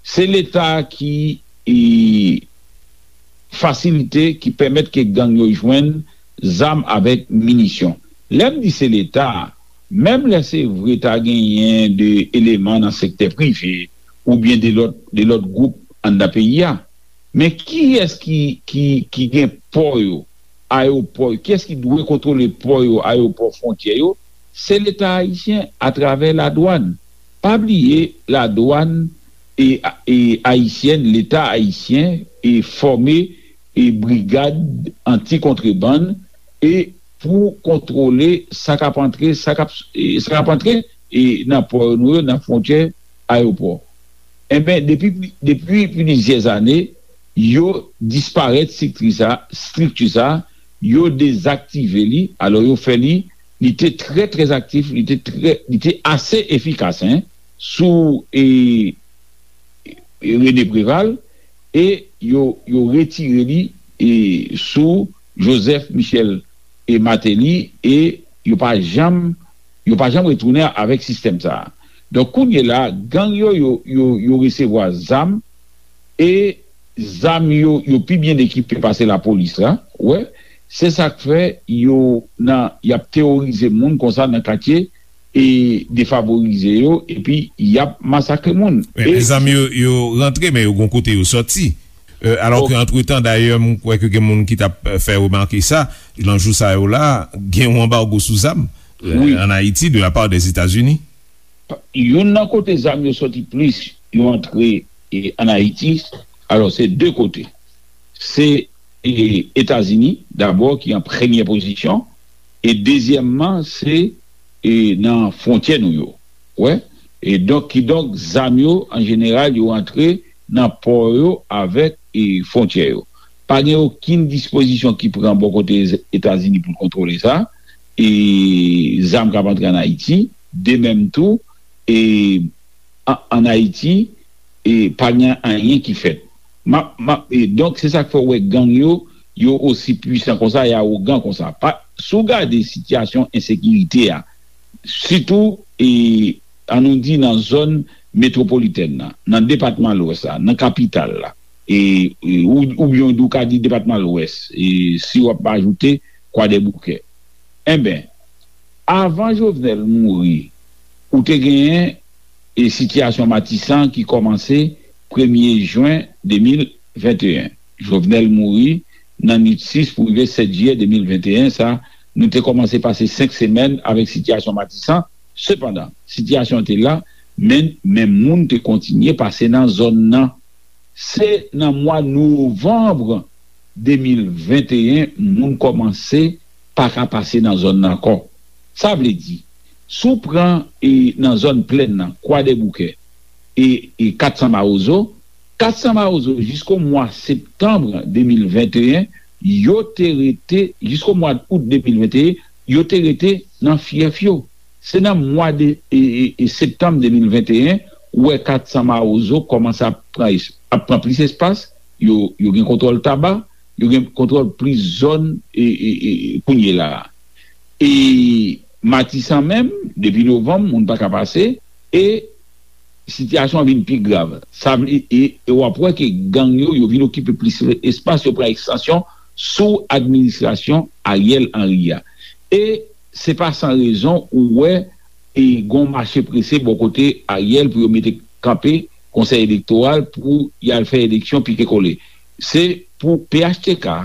Se Leta ki, e, fasilite, ki pèmèt ke gang yo jwenn zam avèk minisyon. Lè m di se Leta, menm lè se vre ta genyen de eleman nan sektè prive oubyen de lòt, de lòt gwoup anndan peyi a, men kiyès ki, ki, ki gen pò yo, ayewopò yo, kiyès ki dwe kontwole pò yo, ayewopò, fwontyè yo? Se Leta ayisyen atravè ladwàn. Pa bliye, ladwàn e, e ayisyèn, Leta ayisyen e fòme e brigad anti-kontrebann e pou kontwole sa k ap antre, sa k ap, e sa k ap antre e nan pò nou yo, nan fwontyè, ayewopò. Enben, depi, depi plizyè ane, yo disparèt estrikti sa, estrikti sa, yo dezaktive li, alò yo fè li, li te trè, trè aktif, li te trè, li te ase efikas, en, sou, e, e René Préval, e yo, yo retire li, e sou Joseph Michel e Martelly, e yo pa janm, yo pa janm retounen avèk sistèm sa a. Donk, kounye la, gang yo, yo, yo, yo resevwa zam, e zam yo, yo pi byen ekipe pase lapolis la, wè. Se sa k fè yo nan, y ap teworize moun konsa nan katye e defavorize yo, epi y ap masakre moun. Men, e zam yo, yo rantre, men yo gon kote yo sòti. E, alò ke, antretan, dayè, m kwè ke gen moun ki t ap, e, fè remake sa, nan jou sa yo la, gen yon anbago sou zam, e, ann Ayiti, de la part des États-Unis. Youn nan kote zam yo sòti plis, yo antre, e, ann Ayiti, alò, se de kote. Se, e, Etazini, dabò, ki an premyè pozisyon, e dezyèmman, se, e, nan fwontyè nou yo. Wè? E donk, kidonk, zam yo, an jeneral, yo antre nan pò yo avèk, e, fwontyè yo. Pa gen okenn dispozisyon ki pran bò kote Etazini pou l kontwole sa. E zam k ap antre ann Ayiti, de menm tou, e an, ann Ayiti, e pa gen anyen ki fèt. M ap, m ap, e donk, se sa k fè w wè gang yo, yo osi pwisan konsa, e awogan konsa. Pa, si w gade sitiyasyon ensekirite a, sitou, e, ann nou di nan zòn metwopolitèn nan, nan depatman Lwès la, nan kapital la, e, e, ou, oubyen w ka di depatman Lwès, e, si w ap ajoute Kwadèboukè. Enben, avan Jovenel mouri, ou te genyen, e, sitiyasyon Matisan ki kòmanse premye jen de mil venteyen. Jovenel mouri nan nwit sis pou rive sèt jiyè de mil venteyen, sa, nou te kòmanse pase senk semèn avèk sitiyasyon Matisan. Sepandan, sitiyasyon an te la, men, men moun te kontinye pase nan zòn nan. Se nan mwa novanm de mil venteyen moun kòmanse pa ka pase nan zòn nan ankò. Sa vle di, si w pran, e, nan zòn plèn nan, Kwadèboukè, e, e Katsan Mawozo, Katsan Mawozo, jisko mwa septanm de mil venteyen, yo te rete, jisko mwa out de mil venteyen, yo te rete nan fyèf yo. Se nan mwa de, e, e, e septanm de mil venteyen, ou wè Katsan Mawozo kòmanse ap pran es-, ap pran plis espas, yo, yo gen kontwòl Taba, yo gen kontwòl plis zòn, e, e, e, kounye la a. E Matisan menm, depi novanm, moun pa ka pase, e sitiyasyon an vin pi grav. Sa vle, e, e w ap wè ke gang yo, yo vin okipe plis espas, yo pran ekstansyon sou administrasyon Ariel Henry a. E se pa san rezon ou wè, e, gon mache prese bò kote Ariel pou yo mete kanpe konsèy elektoral pou y al fè eleksyon pike kole. se pou P H T K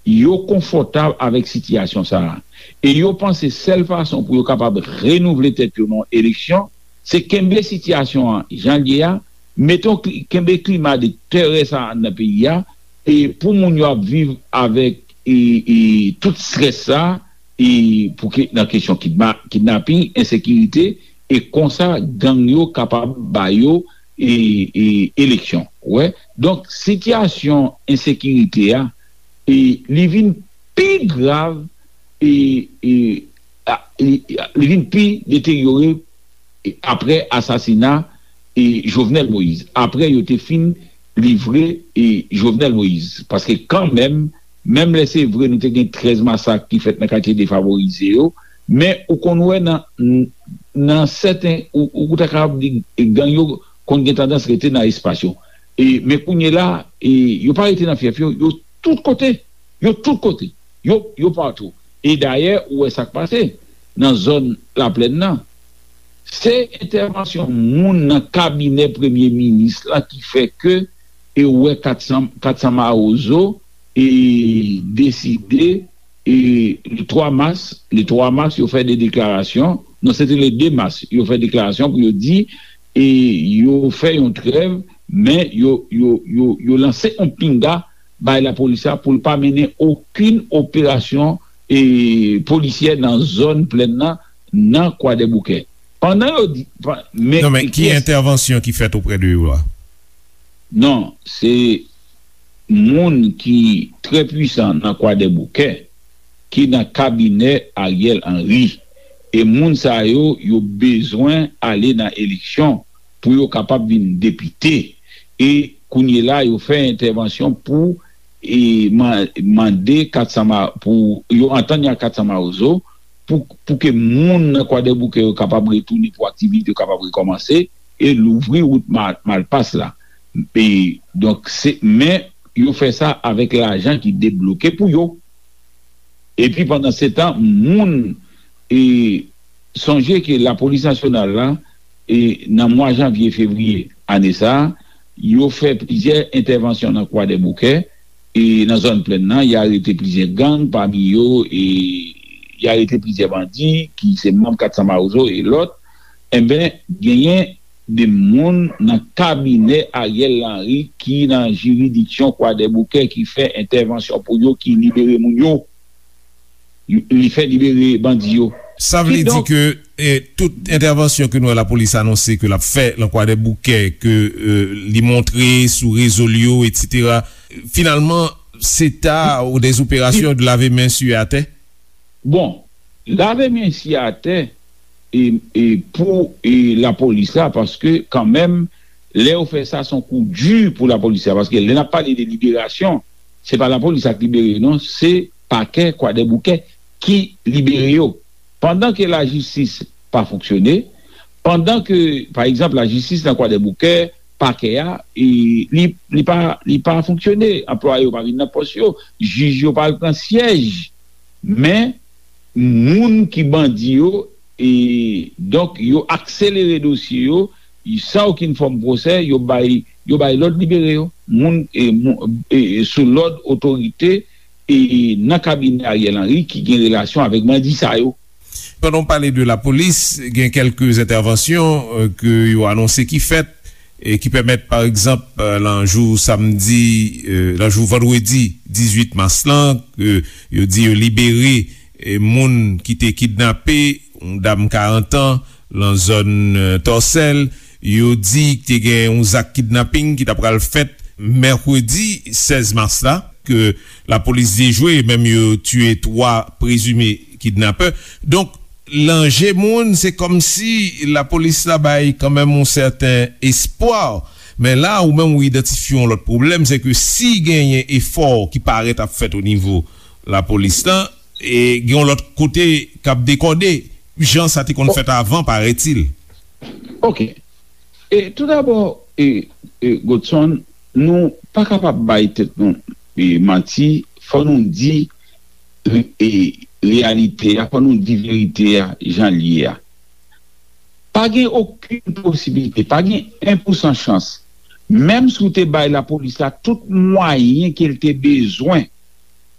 yo konfòtab avèk sitiyasyon sa a. E yo panse sèl fason pou yo kapab renouvle tèt yo nan eleksyon, se kenbe sitiyasyon an jan l ye a, mete yon kli- kenbe klima de terè sa a nan peyi a, e pou moun yo ap viv avèk e, e, tout strès sa a, e, pou ke, nan kesyon kidma- kidnaping, ensekirite, e konsa gang yo kapab ba yo e, e, eleksyon. Ou wè? Donk, sitiyasyon ensekirite a, e, li vin pi grav, e, e, a, li, li vin pi deteryore e, apre asasina e, Jovenel Moïse. Apre yo te fin livre e, Jovenel Moïse. Paske kanmenm, menm lè se vre nou te gen trèz masak ki fèt nan katye defavorize yo, men ou konn wè nan, nan sèten, ou, ou ta kapab di gang yo konn gen tandans rete nan espas yo. E, men kounye la, e, yo pa rete nan fyèf yo, yo tout kote. Yo tout kote. Yo, yo patou. E dayè, ou wè sa k pase nan zòn Laplèn nan. Se entèvansyon moun nan kabinè premye minis la ki fè ke e ou wè kat san, kat san Mawozo e deside e le twa mas, le twa mas, yo fè de deklarasyon. Non, se te le de mas, yo fè deklarasyon pou yo di e yo fè yon trèv, men yo, yo, yo, yo lanse yon pinga bay lapolis la pou l pa mennen okenn operasyon e polisyè nan zòn plèn nan, nan Kwadèboukè. Pandan yo di, pa- men, Non, men ki kiyès? Entèvansyon ki fèt oprè de yo a? Non, se moun ki trè pwisan nan Kwadèboukè, ki nan kabinè Ariel Henry. E moun sa yo, yo bezwen ale nan eleksyon pou yo kapab vin depite. E kounye la, yo fè entèvansyon pou e, man- mande kat san Ma- pou yo antann ak kat san Mawozo pou, pou ke moun nan Kwadèboukè yo kapab retounen, pou aktivite yo kapab rekòmanse e louvri wout Ma- Malpas la. E, donk, se, men yo fè sa avèk lajan ki debloke pou yo. Epi pandansetan, moun e, sonje ke lapolis nasyonal la, e, nan mwa janvye, fevriye ane sa a, yo fè plizyè entèvansyon nan Kwadèboukè, e, nan zòn plèn nan, y arete plizyè gang, pami yo, e, y arete plizyè bandi ki se manm kat san Mawozo e lòt. Enben, genyen de moun nan kabinè Ariel Henry ki nan jiridiksyon Kwadèboukè ki fè entèvansyon pou yo, ki libere moun yo. Li fè libere bandi yo. Sa vle di Kidonk, ke e, tout entèvansyon ke nou wè lapolis anonse ke l ap fè nan Kwadèboukè, ke e, li montre sou rezo l yo, etsetera, finalman, se ta ou des opérations de laver main sur atè? Bon, lave men si atè e, e pou e, lapolis la, paske kanmenm, lè yo fè sa, se yon kou di pou lapolis la, paske lè n ap pale de liberasyon, se pa lapolis la k libere yo, non, se pakè Kwadèboukè ki libere yo. Pandan ke lajistis pa fonksyone, pandan ke, pa egzanp, lajistis nan Kwadèboukè, pakè a, e, li, li pa, li pa fonksyone, anplwaye yo pa vin nan pòs yo, jij yo pa al pran syèj, men moun ki bandi yo, e, donk, yo akselere dosye yo, san okenn fòm pwosè, yo bay, yo bay lòd libere yo. Moun, e, moun, e, e, sou lòd otorite, e, nan kabinè Ariel Henry ki gen relasyon avèk bandi sa yo. Pandan w pale de lapolis, gen kèlke entèvansyon e, ke yo anonse ki fèt, e ki pèmèt, pa egzanp, e, nan jou samdi, e, nan jou vandredi dizuit mas lan, ke yo di yo libere e, moun ki te kidnape yon dam karant an nan zòn e, Tòsèl. Yo di te gen yon zak kidnaping ki ta pral fèt mèkredi sèz mas la, ke lapolis dejwe, menm yo tiye twa prezime kidnapè. Donk, lanje moun, se kòmsi lapolis la bay kanmenm yon sèten espwa. Men la, ou menm ou idantifye yon lòt pwoblèm, se ke si genyen efò ki parèt ap fèt o nivo lapolis la, e gen yon lòt kote k ap dekòde, jan sa te konn fèt avan, parètil. Ok. E, toudabò, e, e, Godson, nou pa kapab bay tèt nou e, manti, fò nou di e, reyalite a, fò nou di verite a jan l ye a. Pa gen okenn posiblite, pa gen en pousan chans Menm si w te bay lapolis la tout mwayen ke l te bezwen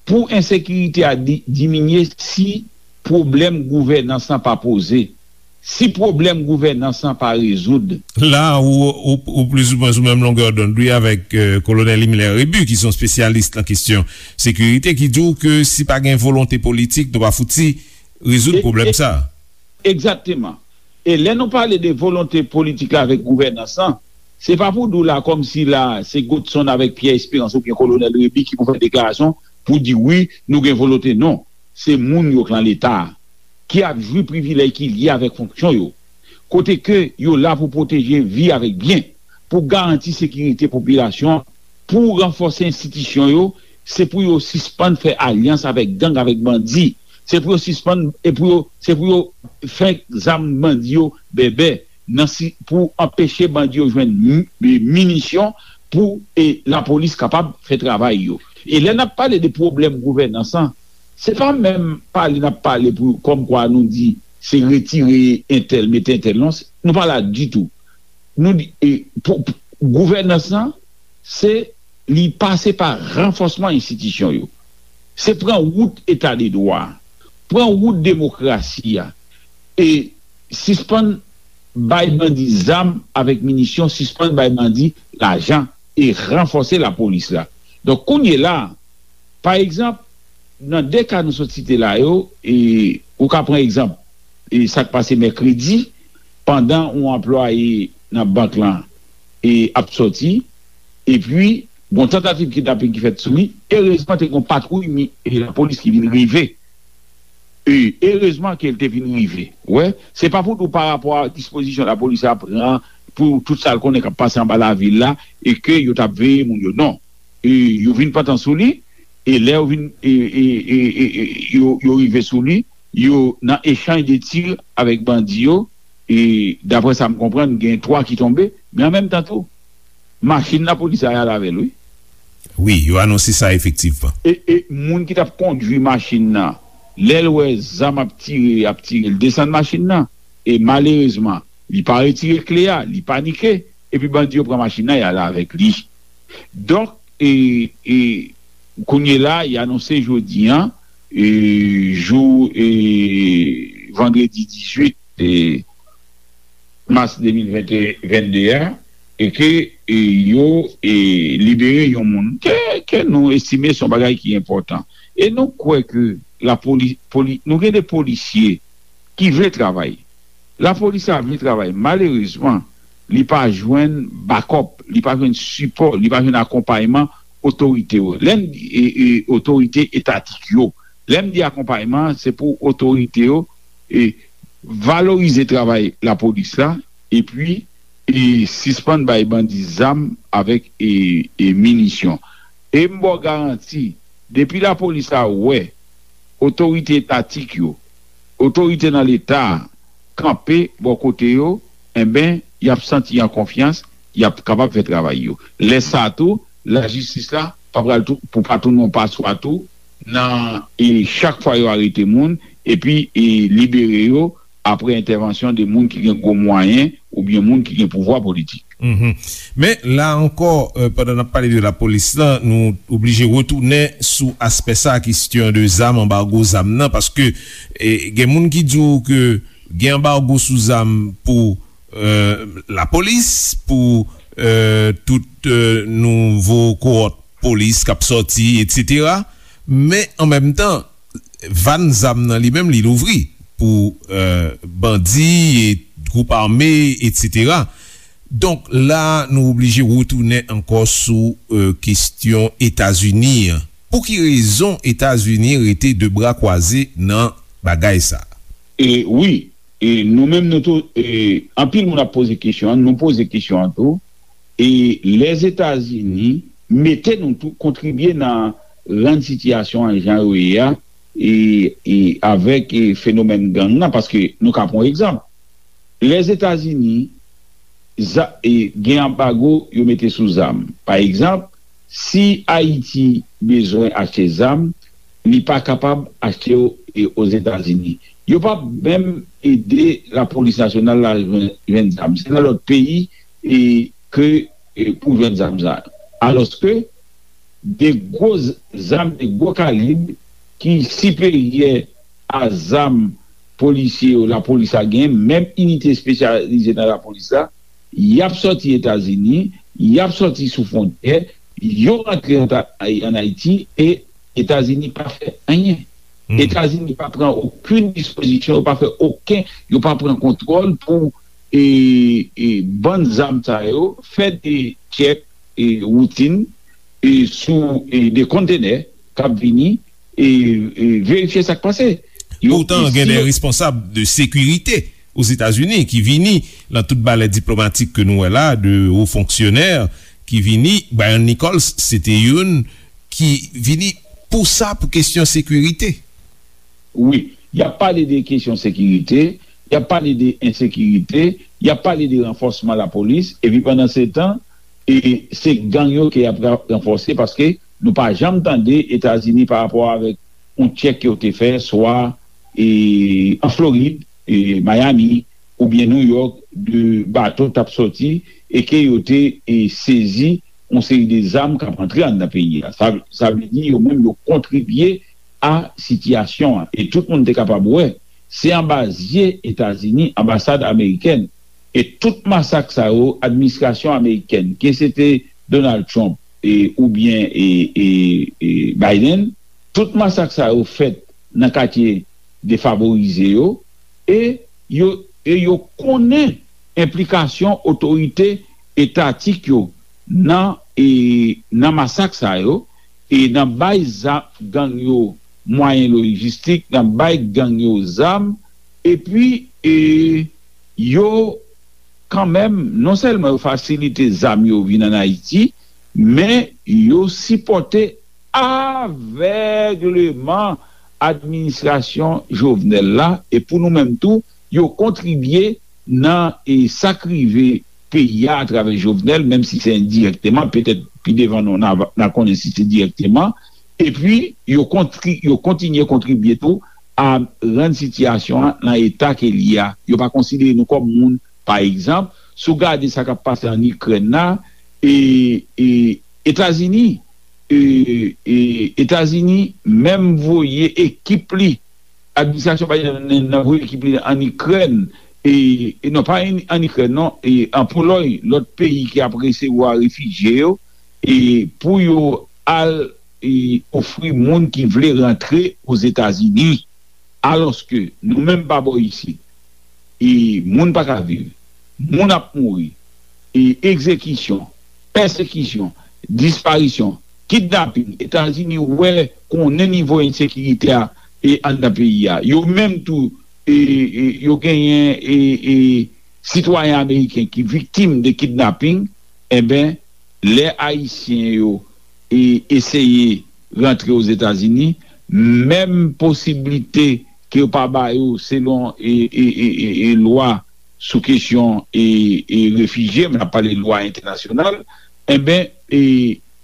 pou ensekirite a di- diminye, si pwoblèm gouvènans lan pa poze, si pwoblèm gouvènans lan pa rezoud. La, ou, ou, ou plizoumwen sou menm longè dond, wi, avèk euh, kolonèl Himmler Rébu, ki se yon espesyalis nan kesyon sekirite, ki di w ke si pa gen volonte politik, nou pa fouti rezoud pwoblèm sa. Egzakteman. E lè nou pale de volonte politik la avèk gouvènans lan, se pa pou di w la kòmsi la se Godson avèk Pierre Espérance oubyen Kolonèl Rébu ki pou fè deklarasyon pou di wi, nou gen volonte. Non. Se moun yo k lan Leta a, ki ap jwi privilèj ki lye avèk fonksyon yo, kote ke yo la pou pwoteje vi avèk byen, pou garanti sekirite popilasyon an, pou ranfòse enstitisyon yo, se pou yo sispann fè alyans avèk gang, avèk bandi. Se pou yo sispann, e pou yo, se pou yo fè zam bandi yo bèbè nan si, pou anpeche bandi yo jwenn mi- mi- minisyon pou e lapolis kapab fè travay yo. E lè n ap pale de pwoblèm gouvènans lan, se pa menm pale n ap pale pou kòmkwa nou di se retire entèl, mete entèl. Non, se- nou pa la ditou. Nou di, e, pou, pou- gouvènans lan, se li pase pa ranfòsman enstitisyon yo. Se pran wout eta de dwa, pran wout demokrasi a, e sispann bay bandi zam avèk minisyon, sispann bay bandi lajan e ranfòse lapolis la. Donk, kounye la, pa egzanp, nan de ka nou sot site la yo, e ou ka pran egzanp e sa k pase mèkredi, pandan yon anplwaye nan bank lan e ap sòti, epi gon tantativ kidnaping ki fèt sou li. Erezman, te gon patwouy mi- e lapolis ki vin rive. E erezman ke l te vin rive. Wè, se pa pou di w pa rapò a dispozisyon lapolis la pran pou tout sa l konnen k ap pase anba lavil la e ke yo t ap veye moun yo. Non. E yo vin pantan sou li, e lè yo vin, e, e, e, e, e, yo, yo rive sou li, yo nan echanj de tir avèk bandi yo, e daprè sa m konprann, gen twa ki tonbe, men an menm tan tou, machin lapolis la y al avè l, wi. Wi, yo anonse sa efektivman. E, e moun ki t ap kondui machin nan, lè l wè zam ap tire, ap tire, l desann machin nan. E malerezman, li pa retire kle a, li panike, epi bandi yo pran machin nan, y al avèk li. Donk, e, e, kounye la, y anonse jodi an, e, jou, e, vandredi dizuit, e, mas de mil vennde a, e ke, e, yo, e, libere yon moun ke, ke nou estime se yon bagay ki enpòtan. E nou kwè ke lapoli-, poli-, nou gen de polisye ki vle travay. Lapolis la vle travay. Malerezman, li pa jwenn bakòp, li pa jwenn sipò, li pa jwenn akonpayman otorite yo. Lè m di, e, e, otorite etatik yo, lè m di akonpayman, se pou otorite yo, e, valorize travay lapolis la, epi, e, sispann bay bandi zam avèk, e, e, minisyon. E m ba w garanti, depi lapolis la wè otorite etatik yo, otorite nan Leta a kanpe bò kote yo, enben, y ap santi an konfyans, y ap kapab fè travay yo. Lè sa a tou, lajistis la pa pral tou, pou pa tounen yon paswa tou, nan, e, chak fwa yo arete moun, epi, e, libere yo apre entèvansyon de moun ki gen gwo mwayen oubyen moun ki gen pouvwa politik. Mhm. Men, la ankò, euh, pandan n ap pale de lapolis la, nou oblije retounen sou aspè sa, kesyon de zam, anbago zam nan, paske, e, gen moun ki di w ke gen anbago sou zam pou, euh, lapolis, pou, euh, tout, euh, nouvo kowòt polis k ap sòti, etsetera. Men, an menm tan, van zam nan li menm, li louvri pou, euh, bandi, e gwoup ame, etsetera. Donk, la, nou oblije retounen ankò sou, euh, kesyon Etazini an. Pou ki rezon Etazini rete de bra kwaze nan bagay sa? E wi, e nou menm nou tou, e anpil moun ap poze kesyon an, nou poze kesyon an tou, e Lèzetazini mete nou tou kontribye nan rann sitiyasyon an jan yo ye a, e, e avèk, e fenomèn gang nan, paske nou ka pran yon egzanp. Lèzetazini, za- e, gen anbago yo mete sou zam. Pa egzanp, si Ayiti bezwen achte zam, li pa kapab achte yo, e, Ozetazini. Yo p ap menm ede lapolis nasyonal la jwenn, jwenn zam. Se nan lòt peyi, e, ke e, pou jwenn zam sa yo. Alòske de gwo z- zam, de gwo kalib ki siperyè a zam polisye yo, lapolis la gen, menm inite espesyalize nan lapolis la, y ap sòti Etazini, y ap sòti sou fwontyè, yo rantre an, an Ayiti, e Etazini pa fè anyen. Etazini pa pran okenn dispozisyon, yo pa fè okenn, yo pa pran kontwòl pou e, e, bann zam sa yo, fè de tchèk e, woutin e, sou e, de kontenè k ap vini e, e verifye sa k pase. Yo, Poutan, e gen si de yo- responsab de sekirite Ozetazini ki vini nan tout balè diplomatik ke nou wè la, de wo fonksyonè ki vini. Brian Nichols, se te youn ki vini pou sa, pou kesyon sekirite. Wi, y ap pale de kesyon sekirite, y ap pale de ensekirite, y ap pale de ranfòsman lapolis, epi pandan se tan, e se gang yo ke y ap ra- ranfòse, paske nou pa janm tande Etazini pa rapò avèk yon tchèk ke yo te fè, swa e, an Florid, e, Miami, oubyen New York, de bato t ap sòti e ke yo te e, sezi yon seri de zam k ap antre anndan peyi a. Sa, sa vle di yo menm yo kontribye a sitiyasyon an. E tout moun te kapab wè, se anba zye Etazini, anbasad amerikèn, e tout masak sa yo, administrasyon amerikèn, ke se te Donald Trump e, oubyen e, e, e Biden, tout masak sa yo fèt nan katye defavorize yo, e yo, e yo konnen enplikasyon otorite etatik yo nan, e, nan masak sa yo, e nan bay za- gang yo mwayen lojistik, nan bay gang yo zam, epi e, yo kanmenm, non sèlman yo fasilite zam yo vin ann Ayiti, men yo sipòte avègleman administrasyon Jovenel la, e pou nou menm tou, yo kontribye nan e, sa k rive peyi a atravè Jovenel, menm si se endirèkteman, petèt pi devan nou n a, n a konnen si se dirèkteman, epi yo kontri, yo kontinye kontribye tou a rann sitiyasyon an nan eta ke l ye a. Yo pa konsidere nou kòm moun. Pa egzanp, si w gade sa k ap pase ann Ikrèn la, e, e Etazini, e, e Etazini menm voye ekip li, administrasyon Biden nan voye ekip li ann Ikrèn, e, e non pa ann, ann Ikrèn non, e an Polòy, lòt peyi ki ap resevwa refijye yo, e pou yo al e, ofri moun ki vle rantre Ozetazini. Alòske nou menm pa bò isit, e, moun pa ka viv, moun ap mouri, e, egzekisyon, pèsekisyon, disparisyon, kidnaping, Etazini wè, konnen nivo ensekirite a e anndan peyi a. Yo menm tou, e, e, yo genyen e, e, sitwayen ameriken ki viktim de kidnaping, enben, lè Ayisyen yo e eseye rantre Ozetazini, menm posiblite ke yo pa ba yo selon e, e, e, e, e lwa sou kesyon e, e refijye, men n ap pale lwa entènasyonal, enben, e,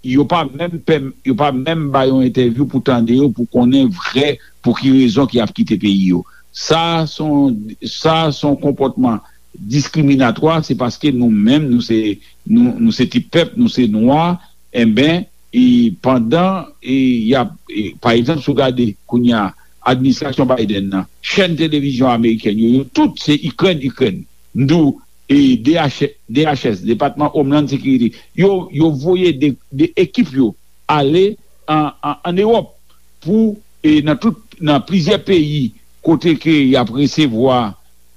yo pa menm pèm, yo pa menm ba yo entèvyou pou tande yo, pou konnen vrè pou ki rezon ki ap kite peyi yo. Sa se yon, sa se yon konpòtman diskriminatwa, se paske nou menm, nou se, nou, nou se ti pèp, nou se nwa, enben, e pandan, e, y ap, e, pa egzanp, si w gade kounye a, administrasyon Biden nan, chèn televizyon amerikèn yo, yo tout se Ikrèn, Ikrèn. M di w, e, D H, D H S, Depatman Homeland Security, yo, yo voye de, de ekip yo ale an, an, ann Ewòp pou, e, nan tout, nan plizyè peyi kote ke y ap resevwa,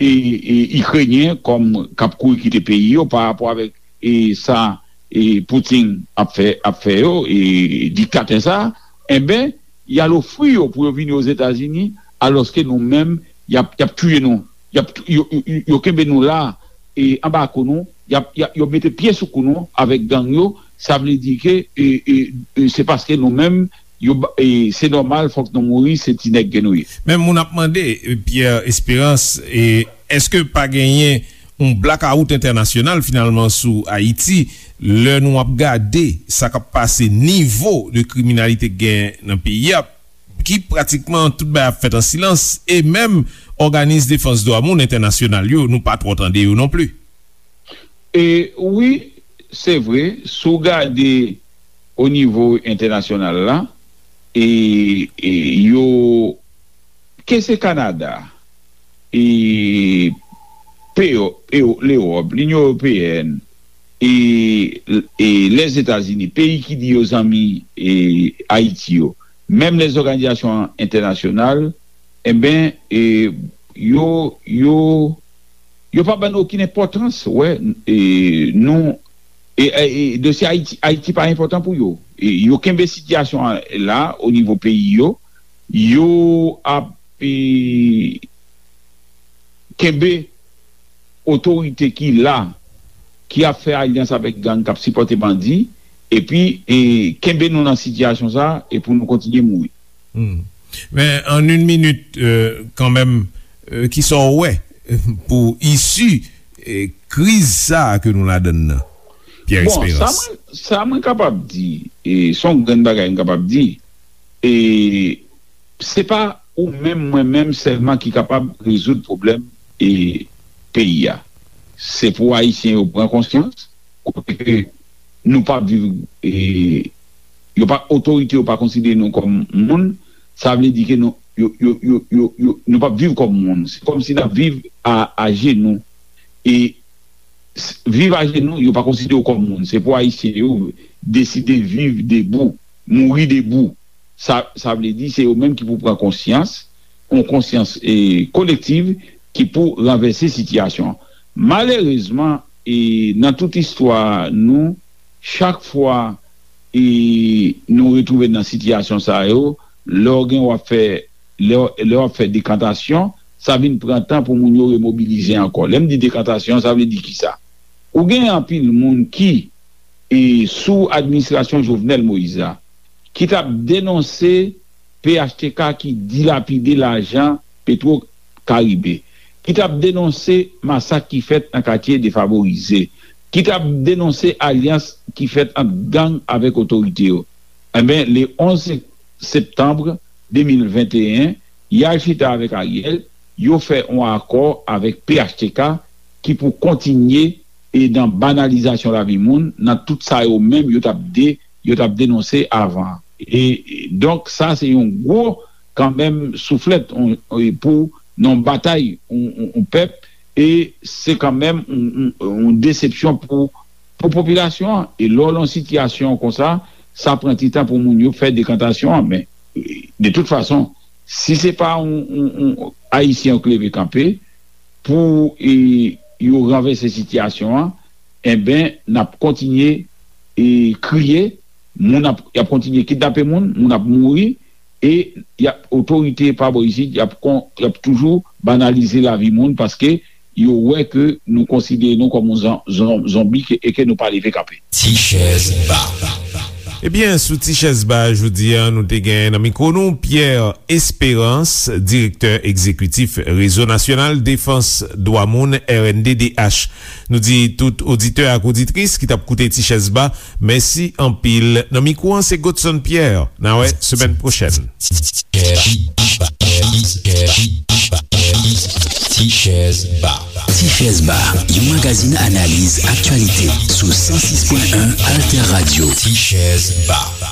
e, e, Ikrenyen kòm k ap kouri kite peyi yo pa rapò avèk, e, sa, e, Putin ap fè, ap fè yo, e, diktatè sa, enben, y al ofri yo pou yo vini Ozetazini, alòske nou menm, y ap, y ap touye nou. Y ap, yo, yo, yo kenbe nou la, e, anba kou nou, y ap, y ap, yo mete pye sou kou nou avèk gang yo, sa vle di ke, e, e, e, se paske nou menm, yo, ba- e, se nòmal, fòk nou mouri, se ti nèg ke nou ye. Men moun ap mande, e, Pierre Espérance, e, èske pa genyen yon blakawout entènasyonal finalman sou Ayiti, lè nou ap gade sa k ap pase, nivo de kriminalite k gen nan peyi a, ki pratikman tout bagay ap fèt an silans, e menm òganis defans dwa moun entènasyonal yo, nou pa twò tande yo non pli. E wi, se vre, si w gade o nivo entènasyonal la, e, e yo, ke se Kanada, e peyo, e Lewòp, Linyon Ewopeyèn, e, e Lèzetazini, peyi ki di yo zanmi e Ayiti yo, menm lèzòganizasyon entènasyonal, enben, e, yo, yo, yo pa ban nou okenn enpòtans, wè, e, nou, e, e, e dosye Ayiti, Ayiti pa enpòtan pou yo. E, yo kenbe sitiyasyon an la, o nivo peyi yo, yo ap, e, kenbe otorite ki la, ki ap fè alyans avèk gang, k ap sipòte bandi, epi, e, kenbe nou nan sitiyasyon sa, e pou nou kontinye mouri. Hmm. Men, an yon minit, e, kanmenm, e, kisa w wè, e, pou isi, e, kriz sa a ke nou ladann nan, Pierre Bon, sa Espérance? Mwen, sa mwen kapab di, e, se yon grenn bagay m kapab di, e, se pa ou menm, mwen menm sèlman ki kapab rezoud pwoblèm, e, peyi a. Se pou Ayisyen yo pran konsyans, kote ke nou pa viv, e, yo pa, otorite yo pa konsidere nou kòm moun, sa vle di ke nou, yo, yo, yo, yo, yo, nou pa viv kòm moun. Se kòmsi n ap viv a, ajenou. E s- viv ajenou, yo pa konsidere w kòm moun. Se pou Ayisyen yo deside viv debou, mouri debou. Sa, sa vle di, se yo menm ki pou pran konsyans, yon konsyans, e, kolektiv ki pou ranvèse sitiyasyon an. Malerezman, e, nan tout istwa nou, chak fwa, e, nou retwouve nan sitiyasyon sa yo, lè w gen w ap fè, lè, lè w ap fè dekantasyon, sa vin pran tan pou moun yo remobilize ankò. Lè m di dekantasyon, sa vle di kisa? Ou gen anpil moun ki, e, sou administrasyon Jovenel Moïse la, ki t ap denonse P H T K ki dilapide lajan Petro Caribe, ki t ap denonse masak ki fèt nan katye defavorize, ki t ap denonse alyans ki fèt ant gang avèk otorite yo. Enben, le onz septanm de mil venteyen, y al chita avèk Ariel, yo fè yon akò avèk P H T K ki pou kontinye e nan banalizasyon lavi moun, nan tout sa yo menm yo t ap de, yo t ap denonse avan. E, e donk, sa se yon gwo, kanmenm, souflèt, on, e pou nan batay, on, on, on pèp, e se kanmenm on, on, on desepsyon pou, pou popilasyon an. E lè w nan sitiyasyon konsa, sa pran ti tan pou moun yo fè dekantasyon an. Men, e, de tout fason, si se pa on, on, on Ayisyen yo k leve kanpe, pou, e, yo ranvèse sitiyasyon an, enben, n ap kontinye, e, kriye, moun ap, y ap kontinye kidnape moun, moun ap mouri, e y ap, otorite pa bò isit, y ap kon, y ap toujou banalize lavi moun paske yo wè ke nou konsidere nou kòm yon zon, zon, zonbi ke, e ke nou pa leve kanpe. Ti chèz ba. Ebyen, sou Ti Chèz Ba jodi a, nou te gen nan mikwo nou Pierre Espérance, direktè egzekitif Rezo Nasyonal Defans Dwa Moun, R N D D H. Nou di tout oditè ak oditris ki t ap koute Ti Chèz Ba, mèsi anpil. Nan mikwo an, se Godson Pierre. N a wè semèn pwochèn. Ti Chèz Ba. Ti Chèz Ba, yon magazin analiz aktyalite sou san sis pwen en Alter Radio. Ti Chèz Ba.